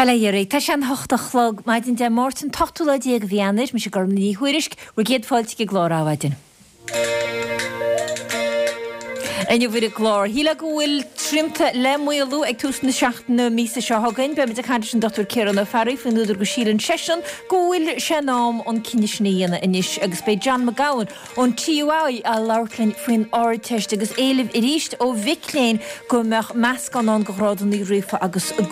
Bail ó Dhia oraibh. Tá sé an hocht a chlog maidin Dé Máirt an t-ochtú lá déag de mhí Eanáir. Mise Gormfhlaith Ní Thuairisg, bhur gcéad fáilte chuig an gclár Adhmhaidin. Inniu ar an gclár, shílfeá go bhfuil srianta le maolú ag tús na seachtaine míosa seo chugainn. Beimid ag caint leis an Dr Ciarán Ó Fearraigh faoin údar go síleann seisean go bhfuil sé in am an cinneadh sin a dhéanamh anois agus beidh John McGowan ón TUI ag labhairt linn faoin Ardteist agus éileamh arís ó mhic léinn go mbeadh meascán ann de ghrádanna ríofa agus de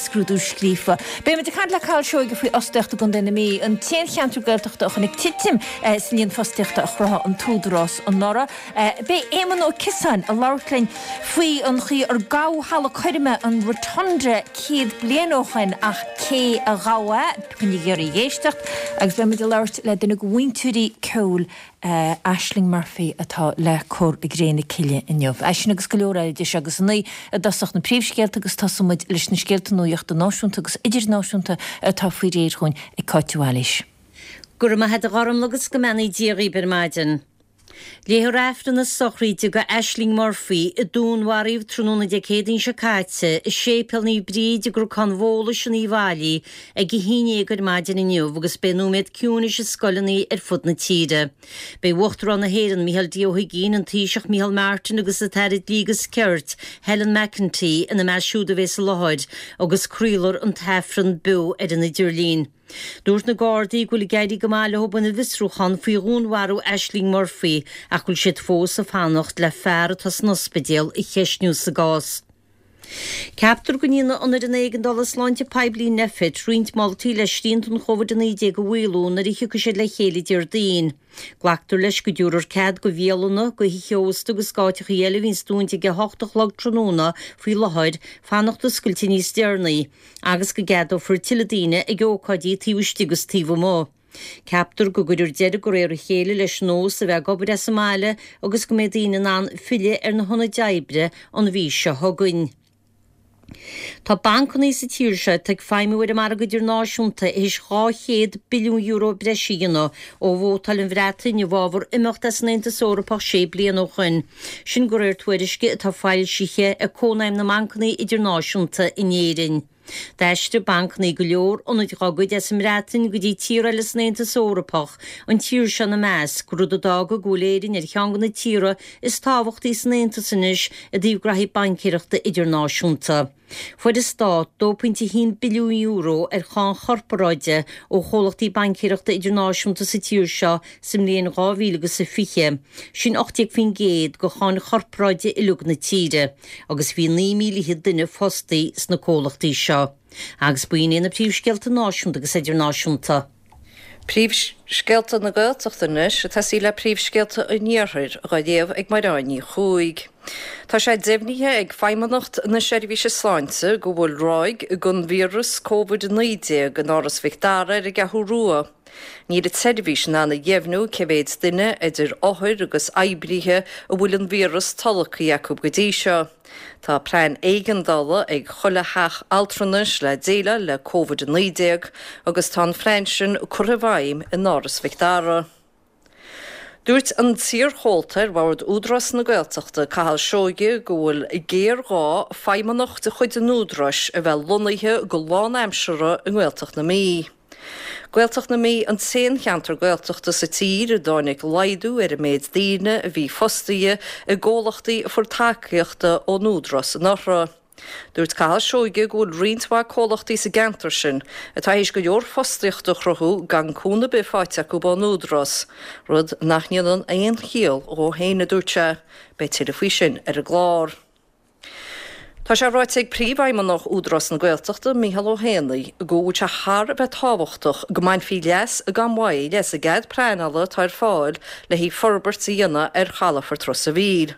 scrúdú scríofa. Beimid ag caint le Cathal Seoige faoi fhostaíocht i gContae na Mí, an t-aon cheantar Gaeltachta a chonaic titim sa líon fostaíochta a chruthaigh an tÚdarás anuraidh. Beidh Éamonn Ó Ciosáin ag labhairt linn faoi an chaoi ar gabhadh halla coirme an Rotunda 100 bliain ó shoin ach cé a ghabh é? Coinnígí oraibh ag éisteacht agus beidh muid ag labhairt le duine de mhúinteoirí ceoil Ashling Murphy atá le cur i gcré na cille inniu. É sin agus go leor eile idir seo agus a naoi i dtosach na príomhscéalta agus tosóidh muid leis na scéalta nuachta náisiúnta agus idirnáisiúnta atá faoi réir dhúinn ag Cáit de Bhailís. Go raibh maith a't a Ghormfhlaith agus go mbeannaí Dia dhaoibh ar maidin. Léifear Aifreann na sochraide do Ashling Murphy, a dúnmharaíodh tráthnóna Dé Céadaoin seo caite i Séipéal Naomh Bríd i gCnocán Bhólais in Uíbh Fhailí ag a haon dhéag ar maidin inniu agus beidh nóiméad ciúinis i scoileanna ar fud na tíre. Beidh Uachtarán na hÉireann, Micheál D. Ó hUigínn, an Taoiseach Micheál Martin agus an tAire Dlí agus Cirt, Helen McEntee ina measc siúd a bheas i láthair agus craolfar an tAifreann beo ar an idirlíon. Dúirt na Gardaí go bhfuil ag éirí go maith leo ina bhfiosrúchán faoi dhúnmharú Ashling Murphy ach go bhfuil siad fós ag fanacht le fear atá san ospidéal a cheistniú sa gcás. Ceaptar go ndéanfaidh an Fhoireann Éigeandála Sláinte Poiblí, Nphet, roinnt moltaí le srianta an Covid-19 a mhaolú nuair a thiocfaidh siad le chéile Déardaoin. Glactar leis go dtabharfar cead go bhialanna, go thithe ósta agus d'áiteachaí eile a bhíonns dúnta ag 8 a chlog tráthnóna faoi láthair, fanacht oscailte níos deireanaí. agus go gceadófar tuilleadh daoine ag ócáidí taobh istigh agus taobh amuigh. Ceaptar go gcuirfear deireadh de réir a chéile leis an nós a bheith ag obair as an mbaile agus go mbeidh daoine in ann filleadh ar na hionaid oibre an mhí seo chugainn. Tá bancanna sa tír seo atá ag feidhmiú ar an margadh idirnáisiúnta théis €200 billiún breise a dhéanamh ó vótáil an Bhreatain i bhfabhar imeacht as an Aontas Eorpach sé bliana ó shoin. Sin de réir tuairisce atá foilsithe ag Cónaidhm na mBancanna Idirnáisiúnta in Éirinn. D'aistrigh bancanna go leor ionaid dá gcuid as an mBreatain go dtí tíortha eile san Aontas Eorpach, an tír seo ina measc, rud a d'fhága go bhfuil Éirinn ar cheann de na tíortha is tábhachtaí san Aontas anois i dtaobh graithí baincéireachta idirnáisiúnta. Fuair an Stát €2.1 billiún ar cháin chorparáide ó chomhlachtaí baincéireachta idirnáisiúnta sa tír seo sa mbliain 2020, sin 18% de cháin chorparáide uilig na tíre, agus bhí 9,000 duine fostaí sna comhlachtaí seo. Agus b'in iad na príomhscéalta náisiúnta agus idirnáisiúnta. Príomhscéalta na Gaeltachta anois, ag tosaí le príomhscéalta an Iarthair, á léamh ag Mairéad Ní Chuaig. Tá sé deimhnithe ag Feidhmeannacht na Seirbhíse Sláinte go bhfuil ráig den víreas Covid-19 in Áras Mhic Dara ar an gCeathrú Rua. Níl an tseirbhís in ann a dheimhniú cé mhéid duine, idir othair agus oibrithe, a bhfuil an víreas tolgtha acu go dtí seo. Tá plean éigeandála ag chuile theach altranais le déileáil le Covid-19 agus tá an phlean sin curtha i bhfeidhm in Áras Mhic Dara. Dúirt an t-iarchomhalta ar bhord Údarás na Gaeltachta, Cathal Seoighe, go bhfuil géarghá feidhmeannach de chuid an Údaráis a bheith lonnaithe go lánaimseartha i nGaeltacht na Mí. Gaeltacht na Mí an t-aon cheantar Gaeltachta sa tír a dtáinig laghdú ar an méid daoine a bhí fostaithe i gcomhlachtaí a fuair tacaíocht ón Údarás anuraidh. Dúirt Cathal Seoighe go bhfuil roinnt mhaith comhlachtaí sa gceantar sin atá théis go leor fostaíochta a chruthú gan cúnamh ar bith faighte acu ón Údarás, rud nach ndéanann aon chiall dhó féin, a dúirt sé. Beidh tuilleadh faoi sin ar an gclár. Tá sé ráite ag Príomhfheidhmeannach Údarás na Gaeltachta, Micheál Ó hÉanaí, go bhfuil sé thar a bheith tábhachtach go mbainfí leas gan mhoill as an gcead pleanála atá ar fáil le haghaidh forbairt a dhéanamh ar chalafort Ros a' Mhíl.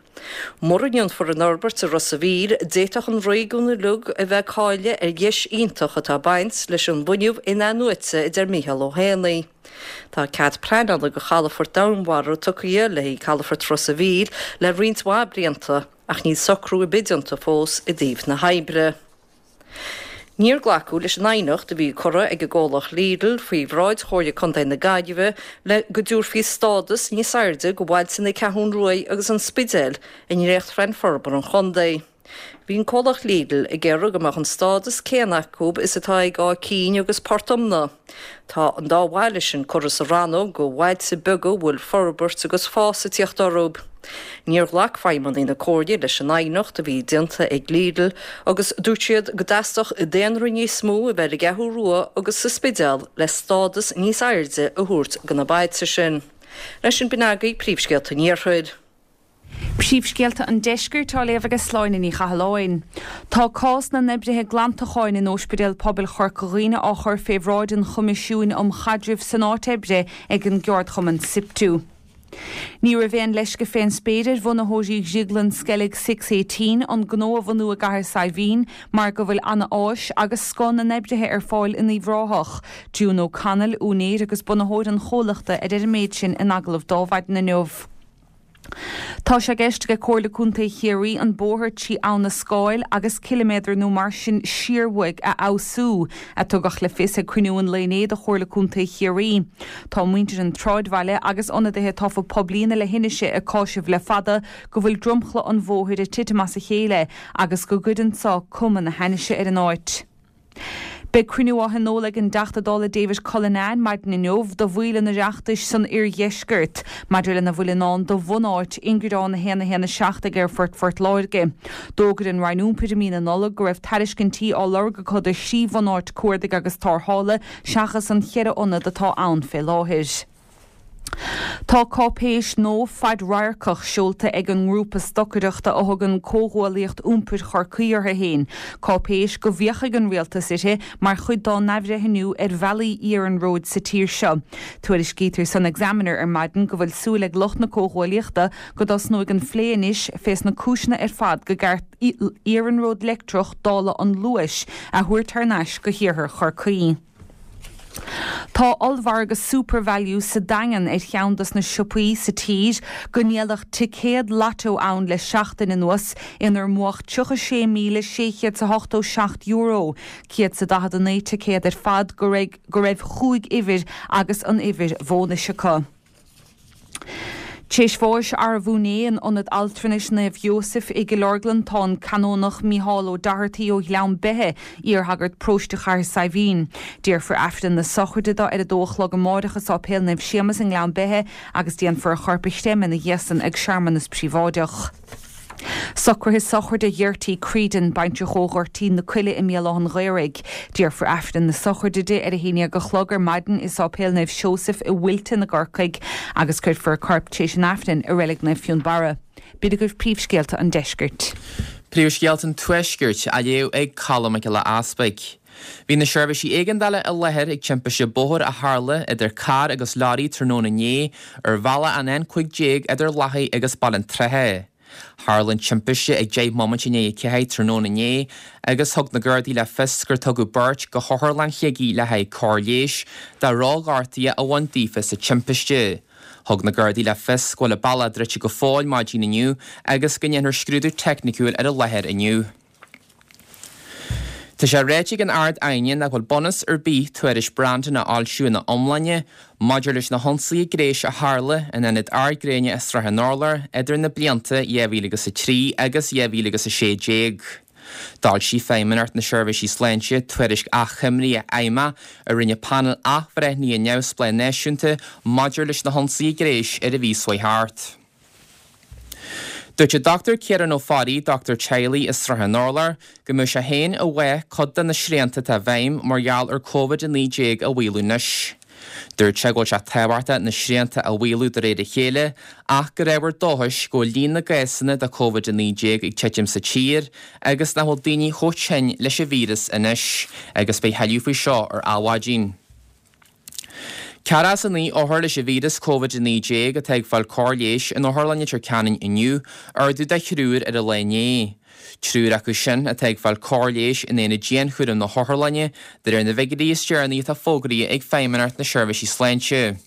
Mura ndéanfar an fhorbairt i Ros a' Mhíl, d'fhéadfadh an réigiún uilig a bheith ag cailleadh ar dheis iontach atá ag baint leis an bhfuinneamh in-athnuaite, a deir Micheál Ó hÉanaí. Tá cead pleanála do chalafort domhainmhara tugtha le haghaidh chalafort Ros a' Mhíl le roinnt mhaith blianta. Ach níl socrú ar bith déanta fós i dtaobh na hoibre. Níor glacadh leis an aighneacht a bhí curtha ag an gcomhlacht Lidl faoi bhráid Chomhairle Contae na Gaillimhe le go dtabharfaí stádas níos airde do bhailte na Ceathrún Ruaidh agus an Spidéil i ndréachtphlean forbartha an chontae. Bhí an comhlacht Lidl ag iarraidh go mbeadh an stádas céanna acu is atá ag Áth Cinn agus Port Omna. Tá an dá bhaile sin curtha sa rannóg go bhailte beaga a bhfuil forbairt agus fás ag tíocht orthu. Níor ghlac feidhmeannaigh na Comhairle leis an aighneacht a bhí déanta ag Lidl agus dúirt siad go dteastódh daonra níos mó a bheith ar an gCeathrú Rua agus sa Spidéal le stádas níos airde a thabhairt go na bailte sin. Leis sin b'in agaibh príomhscéalta an Iarthair. Príomhscéalta an Deiscirt á léamh ag Sláine Ní Chathalláin. Tá cás na n-oibrithe glantacháin in Óispidéal Pobail Chorca Dhuibhne á chur fé bhráid an Choimisiúin um Chaidreamh san Áit Oibre ag an gceardchumann Siptu. Ní raibh aon leisce fén spéir ar bhunaitheoirí dhrioglann Sceilg Six Eighteen an gnó a bhunú i gCathair Saidhbhín mar go bhfuil ana áis agus scoth na n-oibrithe ar fáil in Uíbh Ráthach. June O'Connell, úinéir agus bunaitheoir an chomhlachta a deir an méid sin in agallamh d'Adhmhaidin inniu. Tá sé i gceist ag Comhairle Contae Chiarraí an bóthar trí Abha na Scáil agus ciliméadar nó mar sin siar uaidh a fheabhsú, a tugadh le fios ag cruinniú an lae inné de Chomhairle Contae Chiarraí. Tá muintir an tsráidbhaile agus ionadaithe tofa poiblí na leithinise ag cáiseamh le fada go bhfuil dromchla an bhóthair ag titim as a chéile agus go gcuireann so cuma na hainnise ar an áit. Beidh cruinniú á thionól ag an dTeachta Dála David Cullinane maidin inniu do bhaill an Oireachtais san oirdheisceart maidir lena bhfuil i ndán do bhunáit ingearán 1 1 7 ag Aerfort Phort Láirge. D'fhógair an Roinn Iompair i mí na Nollag go raibh tairiscintí á lorg acu do thrí bhunáit cuardaigh agus tarrthála seachas an cheithre ionad atá ann fé láthair. Tá cáipéis nua fadradharcach seolta ag an ngrúpa stocaireachta a thugann Comhghuaillíocht Iompair Chorcaí orthu féin, cáipéis go bhféachfaidh an Rialtas uirthi mar chuid dá n-athbhreithniú ar bhealaí iarnróid sa tír seo. Tuairiscítear san Examiner ar maidin go bhfuil súil ag lucht na Comhghuaillíochta go dtosnóidh an phlé anois fés na cúiseanna ar fad go gceart iarnród leictreach dála an Luais a thabhairt thar n-ais go hiarthar Chorcaí. Tá ollmhargadh SuperValu sa Daingean ar cheann dos na siopaí sa tír go ndíoladh ticéad Lotto ann le seachtain anuas inar mbuadh €36,687, 149 ticéad ar fad go raibh chúig uimhir agus an uimhir bhónais acu. Tar éis bháis arbh inné in Ionad Altranais Naomh Sheosaimh i gCill Orglan tá an Canónach Mícheál Ó Dochartaigh ó Ghleann Beithe, iarshagart paróiste Chathair Saidhbhín. Déarfar Aifreann na sochraide dó ar a dó a chlog amáireach i Sáipéal Naomh Séamus i nGleann Beithe agus déanfar a chorp a chreimeadh ina dhiaidh san ag searmanas príobháideach. Socruithe sochraide Ghertie Creedon, baintreach ó Ghoirtín na Coille i mBéal Átha an Ghaorthaidh. Déarfar Aifreann na sochraide di ar a haon dhéag a chlog ar maidin i Sáipéal Naomh Seosaimh i Wilton i gCorcaigh agus cuirfear a corp tar éis an Aifrinn i Reilig Naomh Fionnbarra. B'in agaibh príomhscéalta an deiscirt. Príomhscéalta an Tuaiscirt á léamh ag Colm Mac Giolla Easpaig. Bhí na seirbhísí éigeandála i láthair ag timpiste bóthair a tharla idir carr agus leoraí tráthnóna inné ar bhealach an N15 idir Lathaigh agus Baile an tSratha. Tharla an timpiste ag 10 mbomaite i ndiaidh a 4 tráthnóna inné agus thug na Gardaí le fios gur tugadh beirt go hOtharlann Shligigh le haghaidh cóir leighis de dhrochghortuithe a bhain daofa sa timpiste. Thug na Gardaí le fios go bhfuil an bealach druidte go fóill maidin inniu agus go ndéanfar scrúdú teicniciúil ar an láthair inniu. Tá sé ráite ag an Ard-Aighne nach bhfuil bunús ar bith tuairisc Brandon a fhoilsiú ina iomláine maidir leis na hionsaithe gnéis a tharla in ionad ardghréine i Srath an Urláir idir na blianta 2003 agus 2016. D'fhoilsigh Feidhmeannacht na Seirbhísí Sláinte tuairisc achoimre fheidhmeach a rinne painéal athbhreithnithe neamhspleách náisiúnta maidir leis na hionsaithe gnéis ar an mhí seo chuaigh thart. Dúirt an Dr Ciarán Ó Fearraigh, dochtúir teaghlaigh i Srath an Urláir, go mbeadh sé féin i bhfách cuid de na srianta atá i bhfeidhm mar gheall ar Covid-19 a mhaolú anois. Dúirt sé go bhfuil sé tábhachtach na srianta a mhaolú de réir a chéile ach gur ábhar dóchais go bhfuil líon na gcásanna de Covid-19 ag titim sa tír agus nach bhfuil daoine chomh tinn leis an víreas anois agus beidh thuilleadh faoi seo ar Adhmhaidin. 49 othar leis an víreas Covid-19 atá ag fáil cóir leighis in Otharlann Leitir Ceanainn inniu, ardú de thriúr ar an lá inné. Triúr acu sin atá ag fáil cóir leighis in aonad dianchúraim na hotharlainne, de réir na bhfigiúirí is deireanaí atá fógraithe ag Feidhmeannacht na Seirbhísí Sláinte.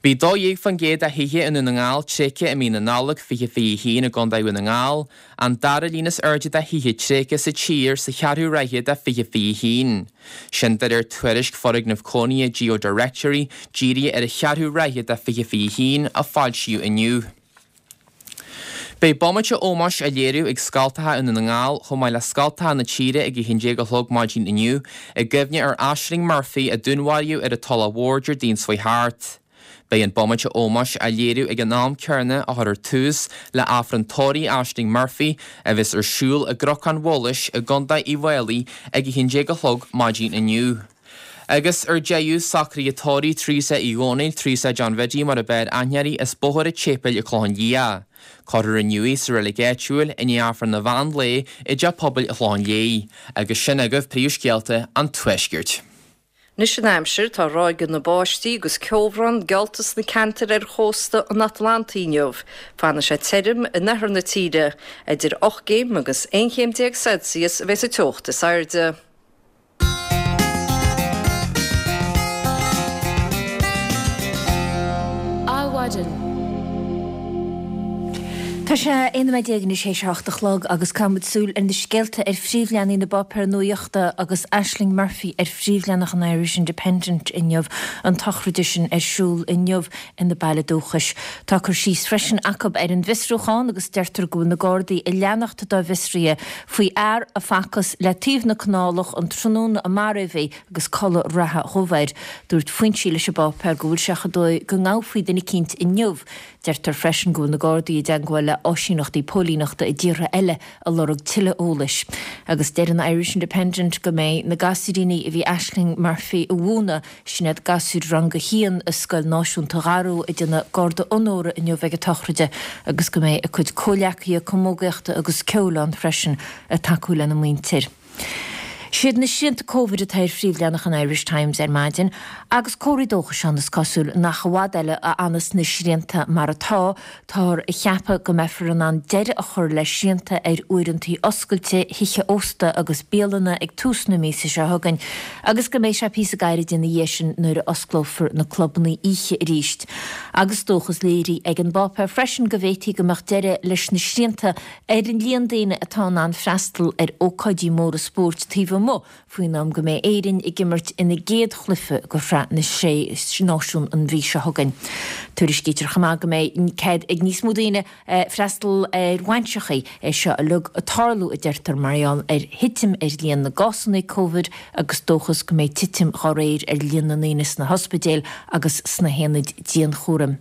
Bhí 12% de thithe i nDún na nGall tréigthe i mí na Nollag 2021 i gContae Dhún na nGall, an dara líon is airde de thithe tréigthe sa tír sa cheathrú ráithe de 2021. Sin de réir tuairisc foirgneamh cónaithe GeoDirectory dírithe ar an cheathrú ráithe de 2021 a foilsíodh inniu. Beidh bomaite ómóis á léiriú ag scoltacha i nDún na nGall chomh maith le scoltacha na tíre ag 11 a chlog maidin inniu i gcuimhne ar Ashling Murphy a dúnmharaíodh ar an Tulach Mhór Déardaoin seo chuaigh thart. Beidh an bomaite ómóis á léiriú ag an am céanna a chuirfear tús le Aifreann tórraimh Ashling Murphy a bheas ar siúl i gCnocán Bholais i gContae Uíbh Fhailí ag 11 a chlog maidin inniu. Agus ar deireadh, socruithe tórraimh Teresa Uí Dhónaill, Teresa John Bhiddy mar ab fhearr aithne uirthi, as Bóthar an tSéipéil i Clochán Liath. Cuirfear inniu í sa reilig áitiúil i ndiaidh Aifreann an mheán lae i dTeach Pobail an Chlocháin Léith. Agus sin agaibh príomhscéalta an Tuaiscirt. Anois an aimsir, tá ráigeanna báistí agus ceobhrán geallta sna ceantair ar chósta an Atlantaigh inniu. Fanfaidh sé tirim in oirthear na tíre. Idir 8 gcéim agus 11 chéim Celsius a bheas an teocht is airde. Adhmhaidin. Tá sé 11 nóiméad anois théis a hocht a chlog agus caithfidh muid súil ar na scéalta ar phríomhleathanaigh na bpáipéar nuachta agus Ashling Murphy ar phríomhleathanach an Irish Independent inniu, an tsochraid sin ar siúl inniu ina baile dúchais. Tá cur síos freisin acu ar an bhfiosrúchán agus deirtear go bhfuil na Gardaí ag leanacht dá bhfiosruithe faoi fhear a facthas le taobh na canálach an tráthnóna a maraíodh í agus culaith reatha dhubh air. Dúirt foinsí leis an bpáipéar go bhfuil sé chomh dóigh go ngabhfaí duine eicínt inniu. Deirtear freisin go bhfuil na Gardaí i dteagmháil le áisíneachtaí póilíneachta i dtíortha eile ag lorg tuilleadh eolais. Agus deir an Irish Independent go mbeidh na gasúiríní a bhí Ashling Murphy a mhúineadh, sin iad gasúir rang a haon i Scoil Náisiúnta Dharú, ag déanamh garda onóra inniu ag an tsochraid agus go mbeidh a cuid comhleacaithe camógaíochta agus ceoil ann freisin ag tacú lena muintir. Siad na srianta Covid atá ar phríomhleathanach an Irish Times ar maidin agus comharthaí dóchais ann, is cosúil, nach i bhfad eile a fhanas na srianta mar atá. Táthar a cheapadh go mbeifear in ann deireadh a chur le srianta ar uaireantaí oscailte thithe ósta agus bialanna ag tús na míosa seo chugainn agus go mbeidh sé píosa gairid ina dhiaidh sin nuair a osclófar na clubanna oíche arís. Agus dóchas léirithe ag an bpáipéar freisin go bhféadfaí go mbeadh deireadh leis na srianta ar an líon daoine atá in ann freastal ar ócáidí móra spóirt taobh amuigh faoin am go mbeidh Éirinn ag imirt ina gcéad chluiche de Shraith na Sé Náisiún an mhí seo chugainn. Tuairiscítear chomh maith go mbeidh cead ag níos mó daoine freastal ar bhainseachaí, é seo uilig ag tarlú, a deirtear, mar gheall ar thitim ar líon na gcásanna Covid agus dóchas go mbeidh titim dá réir ar líon na ndaoine sna hospidéil agus sna haonaid dianchúraim.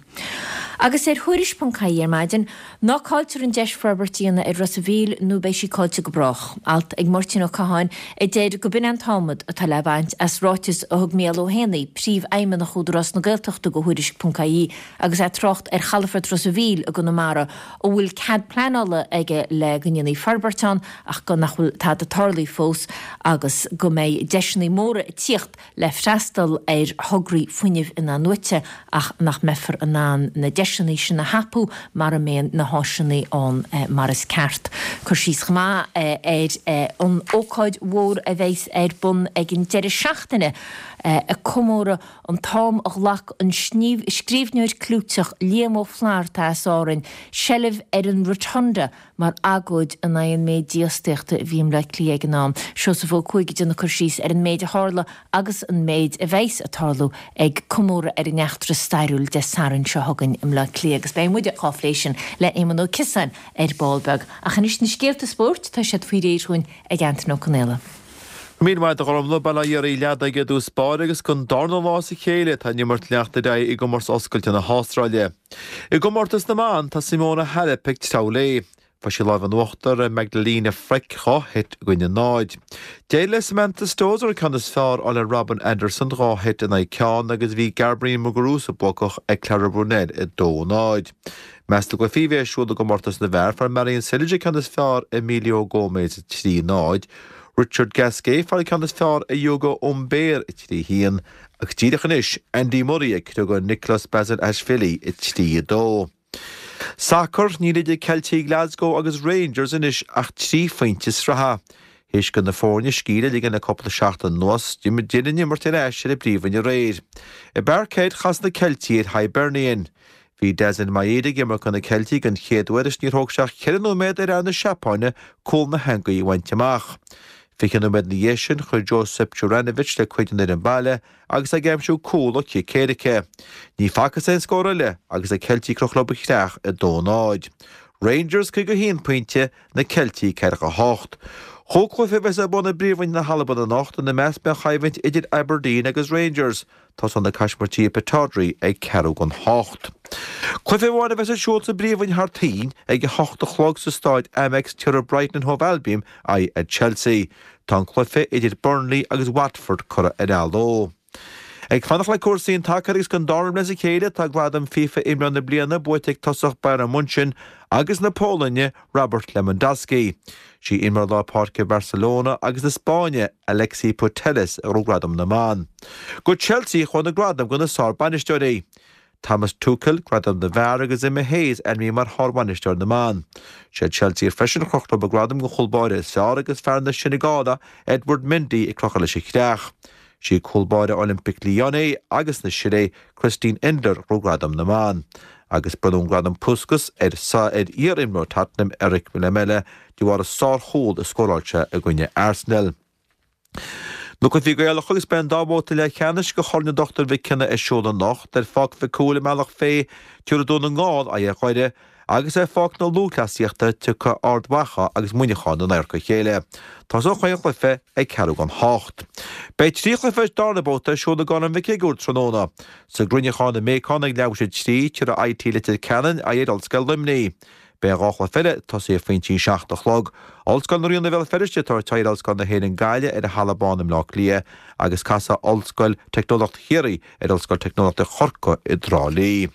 Agus ar Thuairisc ponc ie ar maidin, Ná cailltear an deis forbairt a dhéanamh ar Ros a' Mhíl nó beidh sí caillte go brách. Alt ag Máirtín Ó Catháin a deir go b'in an t-adhmad atá le baint as ráiteas a thug Mícheál Ó hÉanaí, Príomhfheidhmeannach Údarás na Gaeltachta do Thuairisc ponc ie agus é ag trácht ar chalafort Ros a' Mhíl i gConamara a bhfuil cead pleanála aige le go ndéanfaí forbairt ann ach go nach bhfuil tada tarlaithe fós agus go mbeidh deiseanna móra ag tíocht le freastal ar thograí fuinnimh in-athnuaite ach nach mbeifear in ann na deiseanna sin a thapú mara mbeidh na háiseanna ann mar is ceart. Cur síos chomh maith ar an ócáid mhór a bheas ar bun ag an deireadh seachtaine ag comóradh an t-am a ghlac an scríbhneoir clúiteach Liam Ó Flaithearta as Árainn seilbh ar an Rotunda mar agóid in aghaidh an méid dífhostaíochta a bhí i mBleá Cliath ag an am. Seosamh Ó Cuaig ag déanamh cur síos ar an méid a tharla agus an méid a bheas ag tarlú ag comóradh ar an eachtra stairiúil Dé Sathairn seo chugainn i mBleá Cliath agus beidh muide dhá phlé sin le Éamonn Ó Ciosáin ar ball beag. Ach anois na scéalta spóirt, tá siad faoi réir dhúinn ag Antain Ó Conaola. Go raibh míle maith agat a Ghormfhlaith, Bail ó Dhia oraibh leadaigh i dtús báire agus don darna lá as a chéile tá an imirt ag leanacht ar aghaidh i gcomórtas oscailte na hAstráile. I gcomórtas na mban tá Simona Halep ag treabhadh léi. Fuair sí lámh in uachtar ar Magdalena Frech 2 sheit i gcoinne 0. D'éirigh le Samantha Stosur an ceann is fearr a fháil ar Robin Anderson 2 sheit in aghaidh ceann agus bhí Garbiñe Muguruza buacach ag Clara Brunel 2-0. I measc na gcluichí a bhí ar siúl i gcomórtas na bhfear, fuair Marin Cilic an ceann is fearr ar Emilio Gomez 3-0, Richard Gasquet fuair an ceann is fearr ar Ugo Humbert 3-1 agus díreach anois Andy Murray ag criogadh Nikoloz Basilashvili 3-2. Sacar, Níl idir Ceiltigh Glasgow agus Rangers anois ach 3 phointe sraithe. Théis do na foirne scíth a ligean le cúpla seachtain anuas, d'fhill an imirt ar ais ar an bpríomhroinn aréir. I bParkhead, chas na Ceiltigh ar Hibernian. Bhí Daizen Maeda ag imirt do na Ceiltigh den chéad uair is níor thóg sé ach cheithre nóiméad ar fhear na Seapáine cúl na heangaí a bhaint amach. 20 nóiméad ina dhiaidh sin, chuir Josip Juranovic le cuid an fhoireann baile agus é ag aimsiú cúl ó chic éirice. Ní facthas aon scór eile agus na Ceiltigh ag crochadh leo ba chreach 2-0. Rangers 51 pointe, na Ceiltigh 48. Chúig chluiche a bheas ar bun i bPríomhroinn na hAlban anocht, ina measc beidh an choimhlint idir Aberdeen agus Rangers. Tosóidh na Caismirtí i Pittodrie ag ceathrú don hocht. Cluiche amháin a bheas ar siúl sa bPríomhroinn thar toinn ag a hocht a chlog sa Stáid Amex tabharfaidh Brighton and Hove Albion aghaidh ar Chelsea. Tá an cluiche idir Burnley agus Watford curtha ar athló. Ag fanacht le cúrsaí an tsacair agus don dara bliain as a chéile tá gradam FIFA Imreoir na Bliana buaite ag tosach Bayern Munchen agus na Polainne, Robert Lewandowski. Sí imreoir lár páirce Bharcelona agus na Spáinne, Alexia Putellas a ghnóthaigh gradam na mban. Go Chelsea a chuaigh na gradaim do na sár-bhainisteoirí. Thomas Tuchel, gradam na bhfear agus Emma Hayes ainmnithe mar shár-bhainisteoir na mban. Sé Chelsea freisin a chroch leo an gradam don chúl báire is fearr agus fear na Seineagáile, Edward Mendy ag crochadh leis an chreach. Sí cúl báire Olympique Lyonnais agus na Sile, Christine Endler, a ghnóthaigh gradam na mban. Agus bronnadh an gradam Puskas ar ar iar-imreoir Tottenham, Erik Lamela, de bharr an sár-chúl a scóráil sé i gcoinne Arsenal. Na cluichí Gaelacha agus beidh an dá bhabhta leathcheannais de Chorn an Dochtúir Mhic Cionnaith ar siúl anocht ar Pháirc Mhic Cumhaill i mBealach Féich, tabharfaidh Dún na nGall aghaidh ar Dhoire agus ar Pháirc na Lúthchleasaíochta tiocfaidh Ard Mhacha agus Muineachán in adharca a chéile. Tosóidh chaon chluiche ag ceathrú don hocht. Beidh 3 chluiche sa darna babhta ar siúl i gCorn Mhic Shigiúir tráthnóna. Sa gCruinneachán i mBéacán ag leathuair tar éis a 3, tabharfaidh IT Leitir Ceanainn aghaidh ar Ollscoil Luimnigh. Beidh an dá chluiche eile ag tosaí ag pointí 7 a chlog. Ollscoil na Ríona Bhéal Feirste ag tabhairt aghaidh ar Ollscoil na hÉireann Gaillimh ar an Halla Bán i mBleá Cliath agus casfaidh Ollscoil Teicneolaíochta Chiarraí ar Ollscoil Teicneolaíochta Chorcaí i dTrá Lí.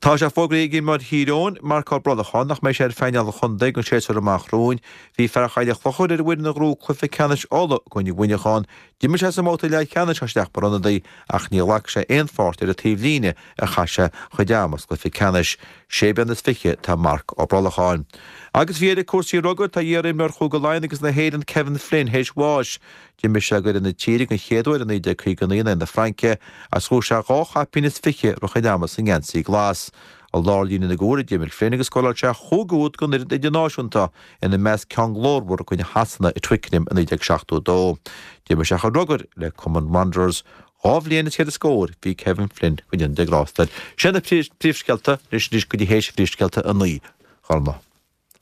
Tá sé fógraithe ag imreoir Thír Eoghain, Marc Ó Brolacháin, nach mbeidh sé ar phainéal an chontae don séasúr amach romhainn. Bhí fear Choill an Chlochair ar an bhfoireann a ghnóthaigh cluiche ceannais Uladh i gcoinne Mhuineacháin. D'imir sé sa mbabhta leathcheannais as isteach mar ionadaí ach ní ghlac sé aon pháirt ar an taobhlíne ar chaith sé a chuid ama sa gcluiche ceannais. Sé bliana is fiche atá Marc Ó Brolacháin. Agus faoi dheireadh cúrsaí rugair, tá iar-imreoir Chúige Laighean agus na hÉireann Kevin Flynn théis bháis. D'imir sé d'fhoireann na tíre den chéad uair i 1959 in aghaidh na Fraince agus ghnóthaigh sé dhá chaipín is fiche i rith a chuid ama sa ngeansaí glas. I lár líne na gcúl a d'imir Flynn agus scóráil sé chúig úd don fhoireann idirnáisiúnta, ina measc ceann glórmhar i gcoinne Shasana i Twickenham i 1972. D'imir sé a chuid rugair le cumann Wanderers. Dhá bhliain is ceithre scór bhí Kevin Flynn go ndéana Dia grásta air. Sin na príomhscéalta anois anois go dtí théis phríomhscéalta a 9, Gormfhlaith.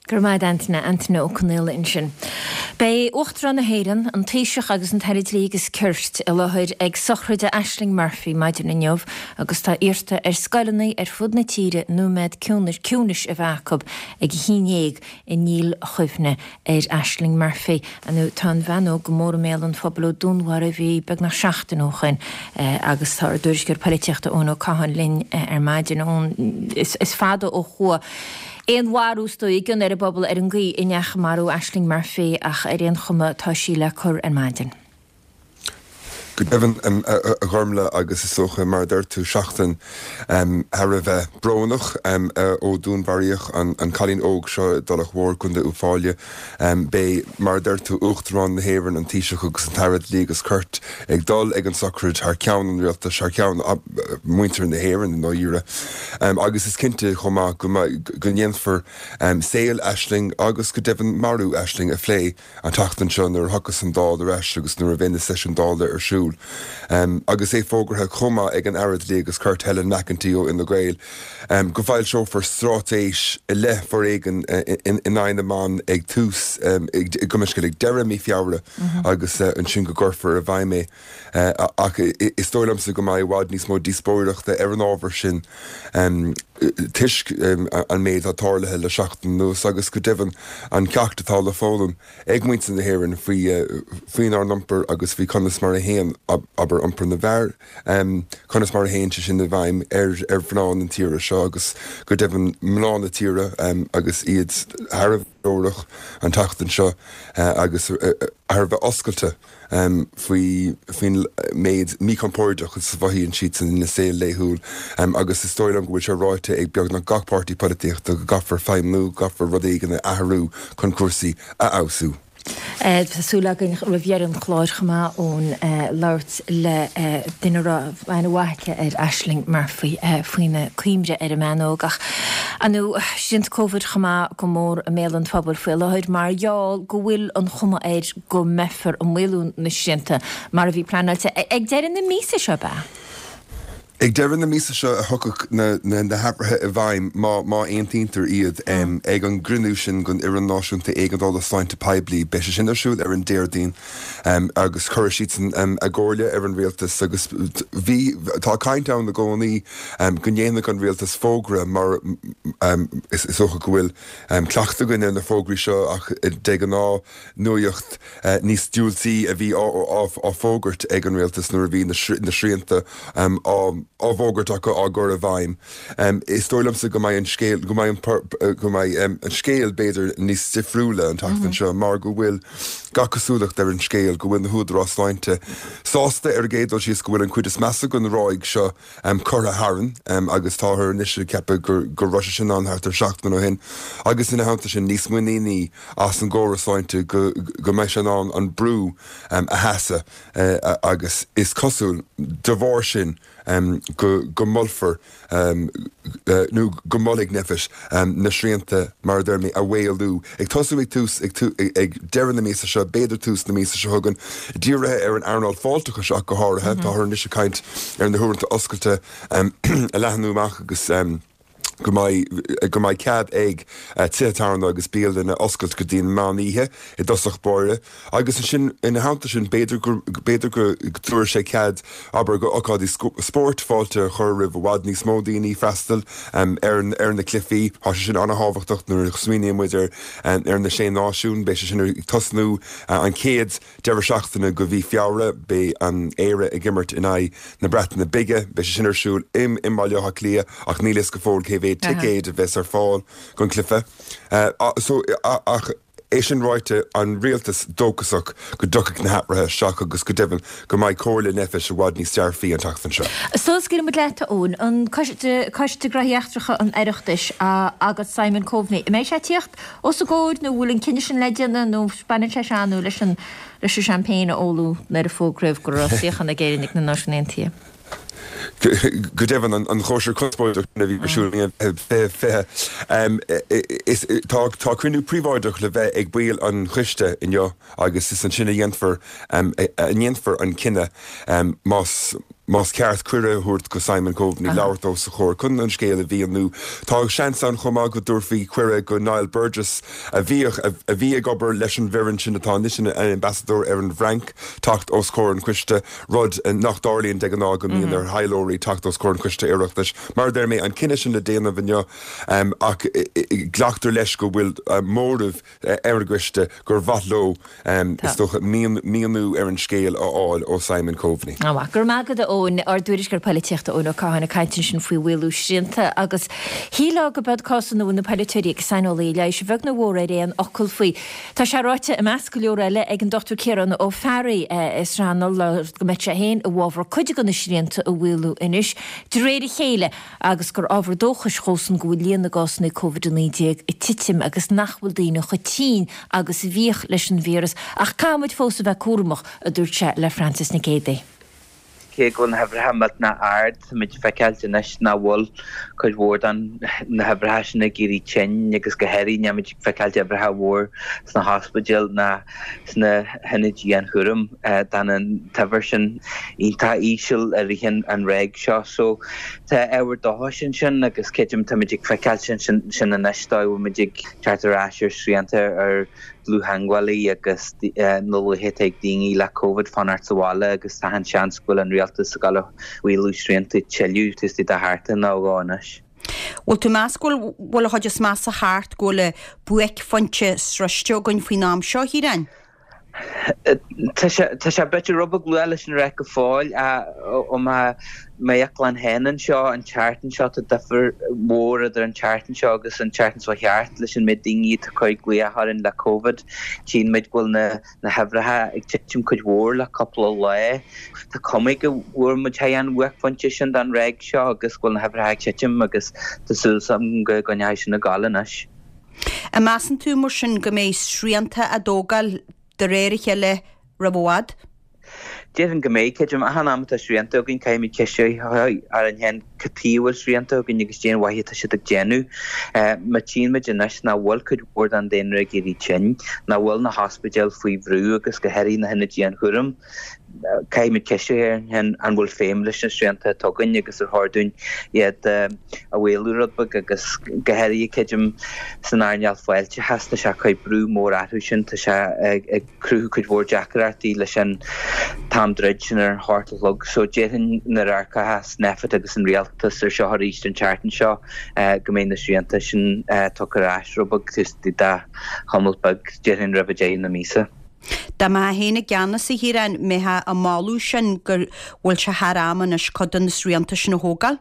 Go raibh maith agat Antaine, Antaine Ó Conaola ansin. Beidh Uachtarán na hÉireann, an Taoiseach agus an tAire Dlí agus Cirt i láthair ag sochraid Ashling Murphy maidin inniu agus tá iarrta ar scoileanna ar fud na tíre nóiméad ciúnais a bheith acu ag a haon dhéag i ndílchuimhne ar Ashling Murphy. Nó tá an bhean óg go mór i mbéal an phobail ó dúnmharaíodh í beagnach seachtain ó shoin agus tá ár dtuairisceoir polaitíochta Eoin Ó Catháin linn ar maidin. Eoin, is fada ó chuaigh aon mharú is dóigh i gcion ar an bpobal ar an gcaoi a ndeachaigh marú Ashling Murphy ach ar aon chuma tá sí le cur ar maidin. Go deimhin, a Ghormfhlaith, agus is dócha, mar a deir tú, seachtain thar a bheith brónach ó dúnmharaíodh an cailín óg seo i dTulach Mhór, Contae Uíbh Fhailí. Beidh, mar a deir tú, Uachtarán na hÉireann, an Taoiseach agus an tAire Dlí agus Cirt ag dul ag an sochraid thar ceann an rialtais, thar ceann mhuintir na hÉireann i ndáiríre. Agus is cinnte chomh maith go ndéanfar saol Ashling agus go deimhin marú Ashling a phlé an tseachtain seo nuair a thiocfas an Dáil ar ais agus nuair a bheidh na seisiúin Dála ar siúl. Agus é fógartha chomh maith ag an Aire Dlí agus Cirt Helen McEntee ó Fhine Gael go bhfoilseofar straitéis i leith foréigean in aghaidh na mban ag tús, gabh mo leithscéal, ag deireadh mí Feabhra agus ansin go gcuirfear i bhfeidhm é. Ach is dóigh liomsa go mbeidh i bhfad níos mó díospóireachta ar an ábhar sin toisc an méid atá tarlaithe le seachtain anuas agus go deimhin an ceacht atá le foghlaim ag muintir na hÉireann faoi faoinár n-iompar agus faoi conas mar a théann, abair, iompar na bhfear, conas mar a théann sé sin i bhfeidhm ar ar mhná na tíre seo agus go deimhin mná na tíre agus iad thar a bheith glórach an tseachtain seo agus thar a bheith oscailte. faoi faoin méid míchompordach is a mhothaíonn siad ina saol laethúil agus is dóigh liom go bhfuil sé ráite ag beagnach gach páirtí polaitíochta go gcaithfear feidhmiú, go gcaithfear rud éigin a athrú chun cúrsaí a fheabhsú. Tá súil againn roimh dheireadh an chláir chomh maith Eoin labhairt le duine a raibh aithne mhaith aici ar Ashling Murphy faoina cuimhne ar an mbean óg. Ach ar ndóigh, srianta Covid chomh maith go mór i mbéal an phobail faoi láthair mar gheall go bhfuil an chuma air go mbeifear ag maolú na srianta mar a bhí pleanáilte ag deireadh na míosa seo, ab ea? Ag deireadh na míosa seo a thiocfadh na hathruithe i bhfeidhm, má aontaítear iad, ag an gcruinniú sin den Fhoireann Náisiúnta Éigeandála Sláinte Poiblí. Beidh sé sin ar siúl ar an Déardaoin agus cuirfidh siadsan a gcomhairle ar an rialtas agus bhí, tá caint ann i gcónaí go ndéanfadh an rialtas fógra mar is dócha go bhfuil cleachtadh againn ar na fógraí seo ach de ghnáth nuaíocht níos diúltaí a bhí á fógairt ag an rialtas nuair a bhí na srianta á bhfógairt acu á gcur i bhfeidhm. Is dóigh liomsa go mbeidh an scéal, go mbeidh an, go mbeidh an scéal b'fhéidir níos difriúla an tseachtain seo mar go bhfuil gach cosúlacht ar an scéal go bhfuil na húdaráis sláinte sásta ar an gcéad dul síos go bhfuil an chuid is measa den ráig seo curtha tharainn agus táthar anois ag ceapadh go raibh sé sin ann thart ar seachtain ó shin agus ina theannta sin níos muiníní as an gcóras sláinte go mbeidh sé in ann an brú a sheasamh agus is cosúil de bharr sin go molfar nó go molfaidh Nphet na srianta, mar a deir mé, a mhaolú, ag tosú ag tús ag deireadh na míosa seo, b'fhéidir tús na míosa seo chugainn, dírithe ar an earnáil fáilteachais ach go háirithe. Táthar anois ag caint ar na huaireanta oscailte a leathnú amach agus. go mbeidh go mbeidh cead ag tithe tábhairne agus bialanna oscailt go dtí an meán oíche i dtosach báire agus ansin ina theannta sin b'fhéidir go b'fhéidir go dtabharfaidh sé cead abair go ocáidí spóirt fáilte a chur roimh i bhfad níos mó daoine freastal ar ar na cluichí. Tá sé sin an-thábhachtach nuair a smaoiníonn muid ar ar na Sé Náisiún beidh sé sin ag tosnú an chéad Deireadh seachtaine de mhí Feabhra, beidh an Éire ag imirt in aghaidh na Breataine Bige. Beidh sé sin ar siúl i mBaile Átha Cliath ach níl fhios go fóill cé mhéad ticéad a bheas ar fáil don chluiche. Ach é sin ráite, an rialtas dóchasach go dtiocfaidh na hathruithe isteach agus go deimhin go mbeidh comhairle Nphet i bhfad níos dearfaí an tseachtain seo. Sula scaoileann muid leat, a Eoin, an Coiste Gnóthaí Eachtracha an Oireachtais agus Simon Coveney, an mbeidh sé ag tíocht os a gcomhair nó bhfuil an cinneadh sin le déanamh nó baineann sé seo nó leis an leis an champagne a óladh nuair a fógraíodh go raibh suíochán ag Éirinn ag na Náisiúin Aontaithe. Go deimhin, an chóisir chonspóideach sin a bhí ar siúl i 2020, is tá tá cruinniú príobháideach le bheith ag baill an choiste inniu agus is ansin a dhéanfar a ndéanfar an cinneadh más más ceart cuireadh a thabhairt go Simon Coveney labhairt os a chomhair chun an scéal a mhíniú. Tá seans ann chomh maith go dtabharfaí cuireadh go Niall Burgess, a bhíodh, a bhí ag obair leis an bhfoireann sin atá anois ina ambasadóir ar an bhFrainc, teacht os comhair an choiste, rud nach dtarlaíonn de ghnáth go mbíonn ar thaidhleoirí teacht os comhair an choiste Oireachtais. Mar a deir mé, an cinneadh sin le déanamh inniu ach glactar leis go bhfuil móramh ar an gcoiste gur mhaith leo, is dócha, míniú ar an scéal a fháil ó Simon Coveney. Go raibh maith agat, a Eoin. Ár dtuairisceoir poilitíochta Eoin Ó Catháin ag caint ansin faoi mhaolú srianta agus shílfeá go b'iad cás ina bhfuil na polaiteoirí agus saineolaithe leighis a bheag nó a mhór ar aon fhocal faoi. Tá sé ráite, i measc go leor eile, ag an Dr Ciarán Ó Fearraigh as Srath go mbeadh sé féin i bhfabhar cuid de na srianta a mhaolú anois de réir a chéile. agus gur ábhar dóchais dhósan go bhfuil líon na gcásanna Covid-19 ag titim agus nach bhfuil daoine chomh tinn agus a bhíodh leis an víreas, ach caithfimid fós a bheith cúramach, a dúirt sé le Frances Nic Géadaigh. Cé go bhfuil na huimhreacha millteanach ard, táimid ag feiceáilt anois nach bhfuil cuid mhór de na huimhreacha sin ag éirí tinn agus go háirithe nílimid ag feiceáilt uimhreacha mhór sna hospidéil ná sna hionaid dianchúraim. D'fhan an t-uimhir sin iontach íseal i rith an ráig seo. So tá ábhar dóchais ansin agus creidim táimid ag feiceáilt sin sin anois dóigh a bhfuil muid ag teacht ar ais ar srianta ar dlúth-theagmhálaí agus na luaithe atá ag daoine le Covid fanacht sa bhaile agus tá an seans go bhfuil an rialtas ag dul a mhaolú srianta tuilleadh taobh istigh de sheachtain nó dhó anois. Bhfuil tú ag meas go bhfuil an chuid is measa thart, go bhfuil buaicphointe sroiste againn faoin am seo, a Chiaráin? Tá sé tá sé b'fhéidir rud beag luath leis sin a rá go fóill ó m'amharc féin anseo an tseachtain seo tá difear mhór idir an tseachtain seo agus an tseachtain seo thart leis an méid daoine atá ag cur glaoch orainn le Covid. Tchíonn muid go bhfuil na na huimhreacha ag titim cuid mhór le cúpla lá. Tá cuma go bhfuair muid thar an bhuaicphointe sin den ráig seo agus go bhfuil na huimhreacha ag titim agus tá súil agam go gcoinneoidh sin ag gabháil anois. An measann tú, mar sin, go mbeidh srianta á dtógáil de réir a chéile roimh i bhfad? Déarfainn go mbeidh. Creidim, achan am atá srianta againn, caithfimid ceist a chur orainn féin cad chuige a bhfuil srianta againn agus cén mhaith atá siad ag déanamh. Má tchíonn muid anois nach bhfuil cuid mhór den daonra ag éirí tinn, nach bhfuil na hospidéil faoi bhrú agus go háirithe na hionaid dianchúraim. Caithfimid ceistiú féin an bhfuil feidhm leis na srianta atá againn agus ar chóir dúinn iad a mhaolú rud beag agus go háirithe creidim san earnáil fáilteachais tá sé ag cur brú mór orthu sin, tá sé ag cruthú cuid mhór deacrachtaí leis an t-am druid sin ar an hocht a chlog. So déarfainn nuair a amharcfas Nphet agus an Rialtas ar seo arís an tseachtain seo go mbeidh na srianta sin tugtha ar ais rud beag taobh istigh de chamall beag déarfainn roimh deireadh na míosa. Dá mbeifeá féin i gceannas, a Chiaráin, mbeifeá ag moladh sin go bhfuil sé thar am anois cuid de na srianta sin a thógáil?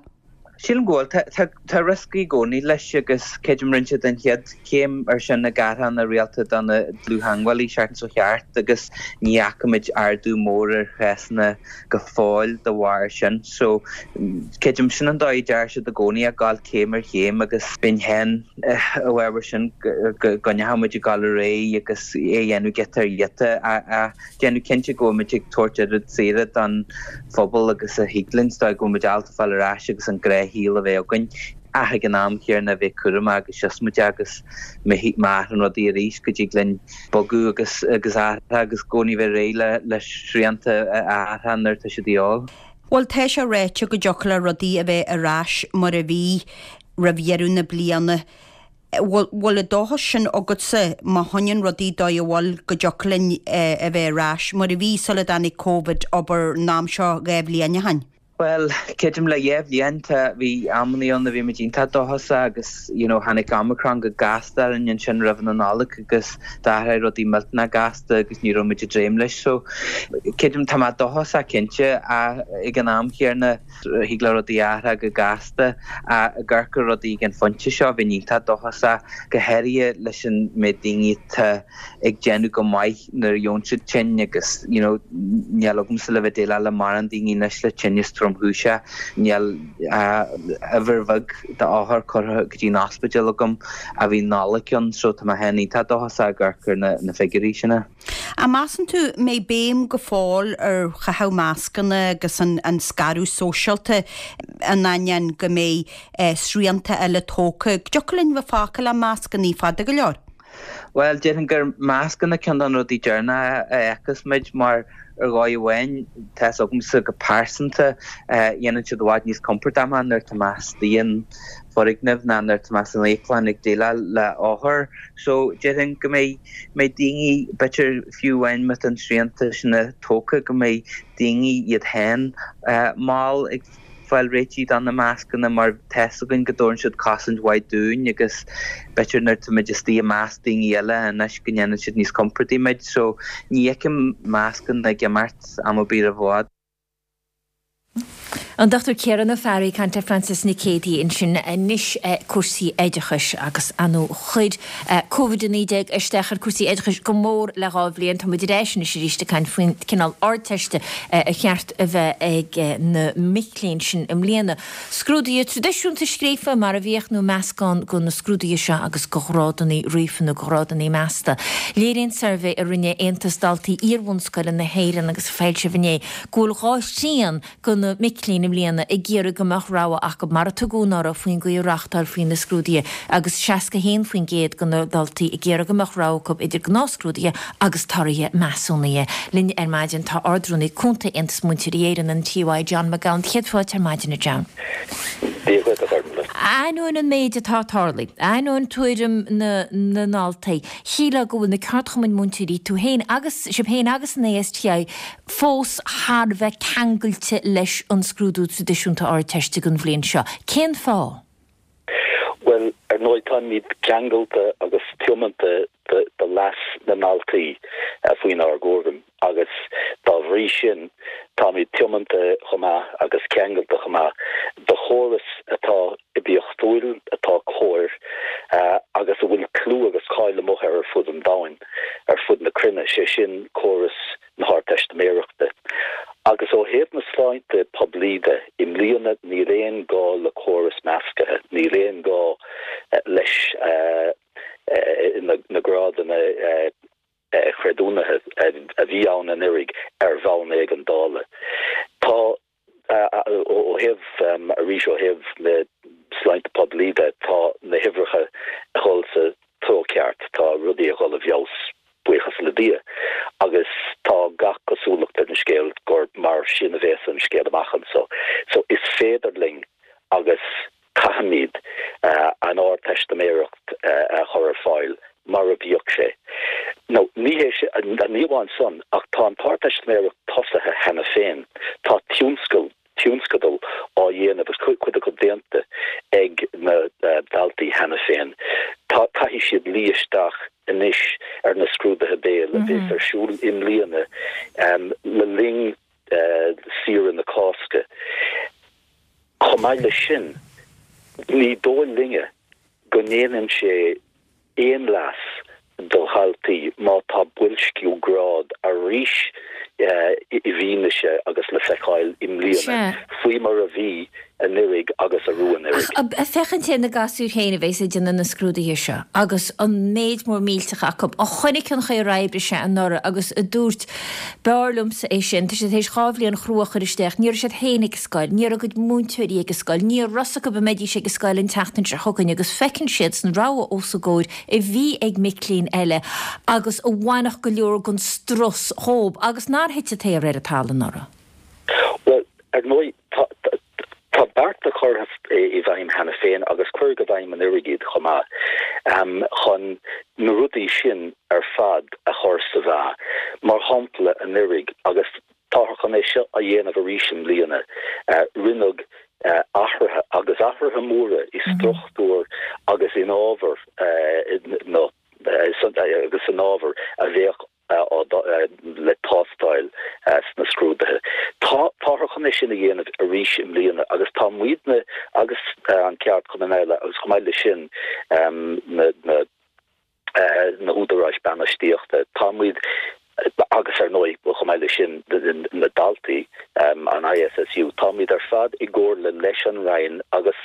Sílim go bhfuil. Tá rioscaí i gcónaí leis agus creidim rinne siad an chéad chéim ar sin ag athrú na rialta do na dlúth-theagmhálaí an tseachtain seo thart agus ní fhaca muid ardú mór ar chásanna go fóill de bharr sin. So, creidim sin an dóigh a deir siad i gcónaí, ag gabháil céim ar chéim agus bheinn féin i bhfabhar sin go gcoinneochadh muid ag gabháil ar aghaidh agus é a dhéanamh giota ar ghiota ach déanamh cinnte go bhfuil muid ag tabhairt oiread saoire don phobal agus a thig linn, is dóigh go bhfuil muid ábalta fáil ar ais agus an gnáthshaol a bheith againn ach ag an am chéanna a bheith cúramach agus siosmaideach agus má athraíonn rudaí arís go dtig linn bogadh agus agus athrú agus i gcónaí bheith réidh le le srianta a athrú nuair atá siad de dhíobháil. Bhuel tá sé ráite go dtiocfadh le rudaí a bheith ar ais mar a bhí roimh dheireadh na bliana. Bhfuil an dóchas sin agatsa má choinníonn rudaí dóigh a bhfuil go dtiocfadh linn a bheith ar ais mar a bhí sula dtáinig Covid, abair, an am seo 2 bhliain ó shin? Bhuel, creidim le 2 bhliain tá, bhí amannaí ann a bhí muid iontach dóchasach agus you know tháinig Omicron go gasta orainn ansin roimh na Nollag agus d'athraigh rudaí millteanach gasta agus ní raibh muid ag dréim leis. So, creidim tá mé dóchasach cinnte ach ag an am chéanna, Thig le rudaí athrú go gasta ach ag amharc ar rudaí ag an phointe seo, bheinn iontach dóchasach, go háirithe leis an méid daoine atá ag déanamh go maith nuair a gheobhann siad tinn agus you know níl agamsa le bheith déileáil le mórán daoine anois le tinneas tromchúiseach, níl ach uimhir bheag d'othair curtha go dtí an ospidéal agam ó bhí an Nollaig ann so tá mé féin iontach dóchasach ag amharc ar na figiúirí sin. An measann tú mbeidh béim go fóill ar chaitheamh mascanna agus an scaradh sóisialta in ainneoin go mbeidh srianta eile tógtha? Go dtiocfadh linn bheith fágtha le mascanna fada go leor? Bhuel, déarfainn gur mascanna ceann de na rudaí deireanacha a fheicfeas muid mar ar dhóigh amháin, tá's agamsa go pearsanta, dhéanann siad i bhfad níos compordaí mé nuair atá mé istigh in foirgneamh ná nuair atá mé san íoclann ag déileáil le othair. So, déarfainn go mbeidh mbeidh daoine, b'fhéidir fiú amháin má tá na srianta sin tógtha, go mbeidh daoine iad féin mall ag fáil réitithe do na mascanna mar tá's againn go dtabharann siad cosaint mhaith dúinn agus b'fhéidir nuair atá muid istigh i measc daoine eile anois go ndéanann siad níos compordaí muid. So ní fheicim mascanna ag imeacht am ar bith roimh i bhfad. An Dr Ciarán Ó Fearraigh ag caint le Frances Nic Géadaigh ansin. Anois cúrsaí oideachais agus ar ndóigh chuir Covid-19 isteach ar cúrsaí oideachais go mór le 2 bhliain. Tá muid ar ais anois arís ag caint faoin cineál Ardteiste ar cheart a bheith ag na mic léinn sin i mbliana. Scrúduithe traidisiúnta scríofa mar a bhíodh nó meascán de na scrúduithe seo agus de ghrádanna ríofa nó de ghrádanna measta. Léiríonn suirbhé a rinne Aontas Daltaí Iarbhunscoile na hÉireann agus a foilsíodh inné go bhfuil 2 thrian de na mic léinn i mbliana ag iarraidh go mbeadh rogha acu, mar a tugadh anuraidh, faoin gcaoi a reáchtálfaí na scrúduithe agus 61% de na daltaí ag iarraidh go mbeadh rogha acu idir gnáthscrúduithe agus torthaí measúnaithe. Linn ar maidin tá Ard-Rúnaí Cúnta Aontas Múinteoirí Éireann, an TUI, John McGowan. Céad fáilte ar maidin, a John. Dia dhuit, a Ghormlaith. Ainneoin an méid atá tarlaithe, ainneoin tuairim na ndaltaí, shílfeá go bhfuil na ceardchumainn múinteoirí, tú féin agus, sibh féin agus an ASTI, fós thar a bheith ceangailte leis an scrúdú traidisiúnta Ardteiste don bhliain seo. Cén fáth? Bhuel, ar ndóigh, táimid ceangailte agus tiomanta do leas na ndaltaí faoinár gcúram agus dá bhrí sin táimid tiomanta chomh maith agus ceangailte chomh maith do chóras atá oibiachtúil, atá cóir agus a bhfuil clú agus cáil amuigh air ar fud an domhain, ar fud na cruinne, sé sin córas na hArdteistiméireachta. Agus ó thaobh na sláinte poiblí de, i mbliana níl aon gá le córas meascaithe, níl aon gá leis na grádanna creidiúnaithe a bhí ann anuraidh ar bhonn éigeandála. Tá. Ó thaobh, arís, ó thaobh na sláinte poiblí de, tá na huimhreacha ag dhul sa treo ceart, tá rudaí ag dhul i bhfeabhas, buíochas le Dia, agus tá gach cosúlacht ar an scéal gur. amháin san, ach tá an t-Ardteistiméireacht tosaithe cheana féin. Tá tionscal, tionscadal á dhéanamh agus cuid acu déanta ag na daltaí cheana féin. Tá, caithfidh siad luí isteach anois ar na scrúduithe béil a bheas ar siúl i mbliana le linn saoire na Cásca. Chomh maith leis sin, ní dóigh linne go ndéanann sé aon leas do dhaltaí má tá boilsciú grád arís i bhfianaise agus le feiceáil i mbliana, faoi mar a bhí anuiridh agus arú anuraidh. Ach féachaint ar na gasúir féin a bheas ag déanamh na scrúduithe seo agus an méid mór millteach acu, a chonaic an chaoi ar oibrigh sé anuraidh agus a dúirt, B'fhearr liomsa é sin. Tá siad tar éis 2 bhliain chrua a chur isteach. Ní raibh siad féin ag an scoil, ní raibh a gcuid múinteoirí ag an scoil, ní raibh fhios acu an mbeidís ag an scoil an tseachtain seo chugainn agus feiceann siad san rogha os a gcomhair a bhí ag mic léinn eile agus a bhainfeadh go leor den strus dhóib agus nár thit an t-aer ar an talamh anuraidh. Bhuel, ar ndóigh, tá tá bearta curtha i bhfeidhm cheana féin agus cuireadh i bhfeidhm anuraidh iad chomh maith chun na rudaí sin ar fad a chur sa mheá. Mar shampla, anuraidh, agus táthar chun é seo a dhéanamh arís i mbliana, rinneadh athruithe, agus athruithe móra, i struchtúr agus in ábhar na agus san ábhar a bheadh le tástáil sna scrúduithe. Táthar chun é sin a dhéanamh arís i mbliana agus tá muidne agus an ceardchumann eile agus chomh maith leis sin na na húdaráis bainistíochta, tá muid agus ar ndóigh chomh maith leis sin na daltaí, an ISSU, tá muid ar fad i gcomhairle leis an Roinn agus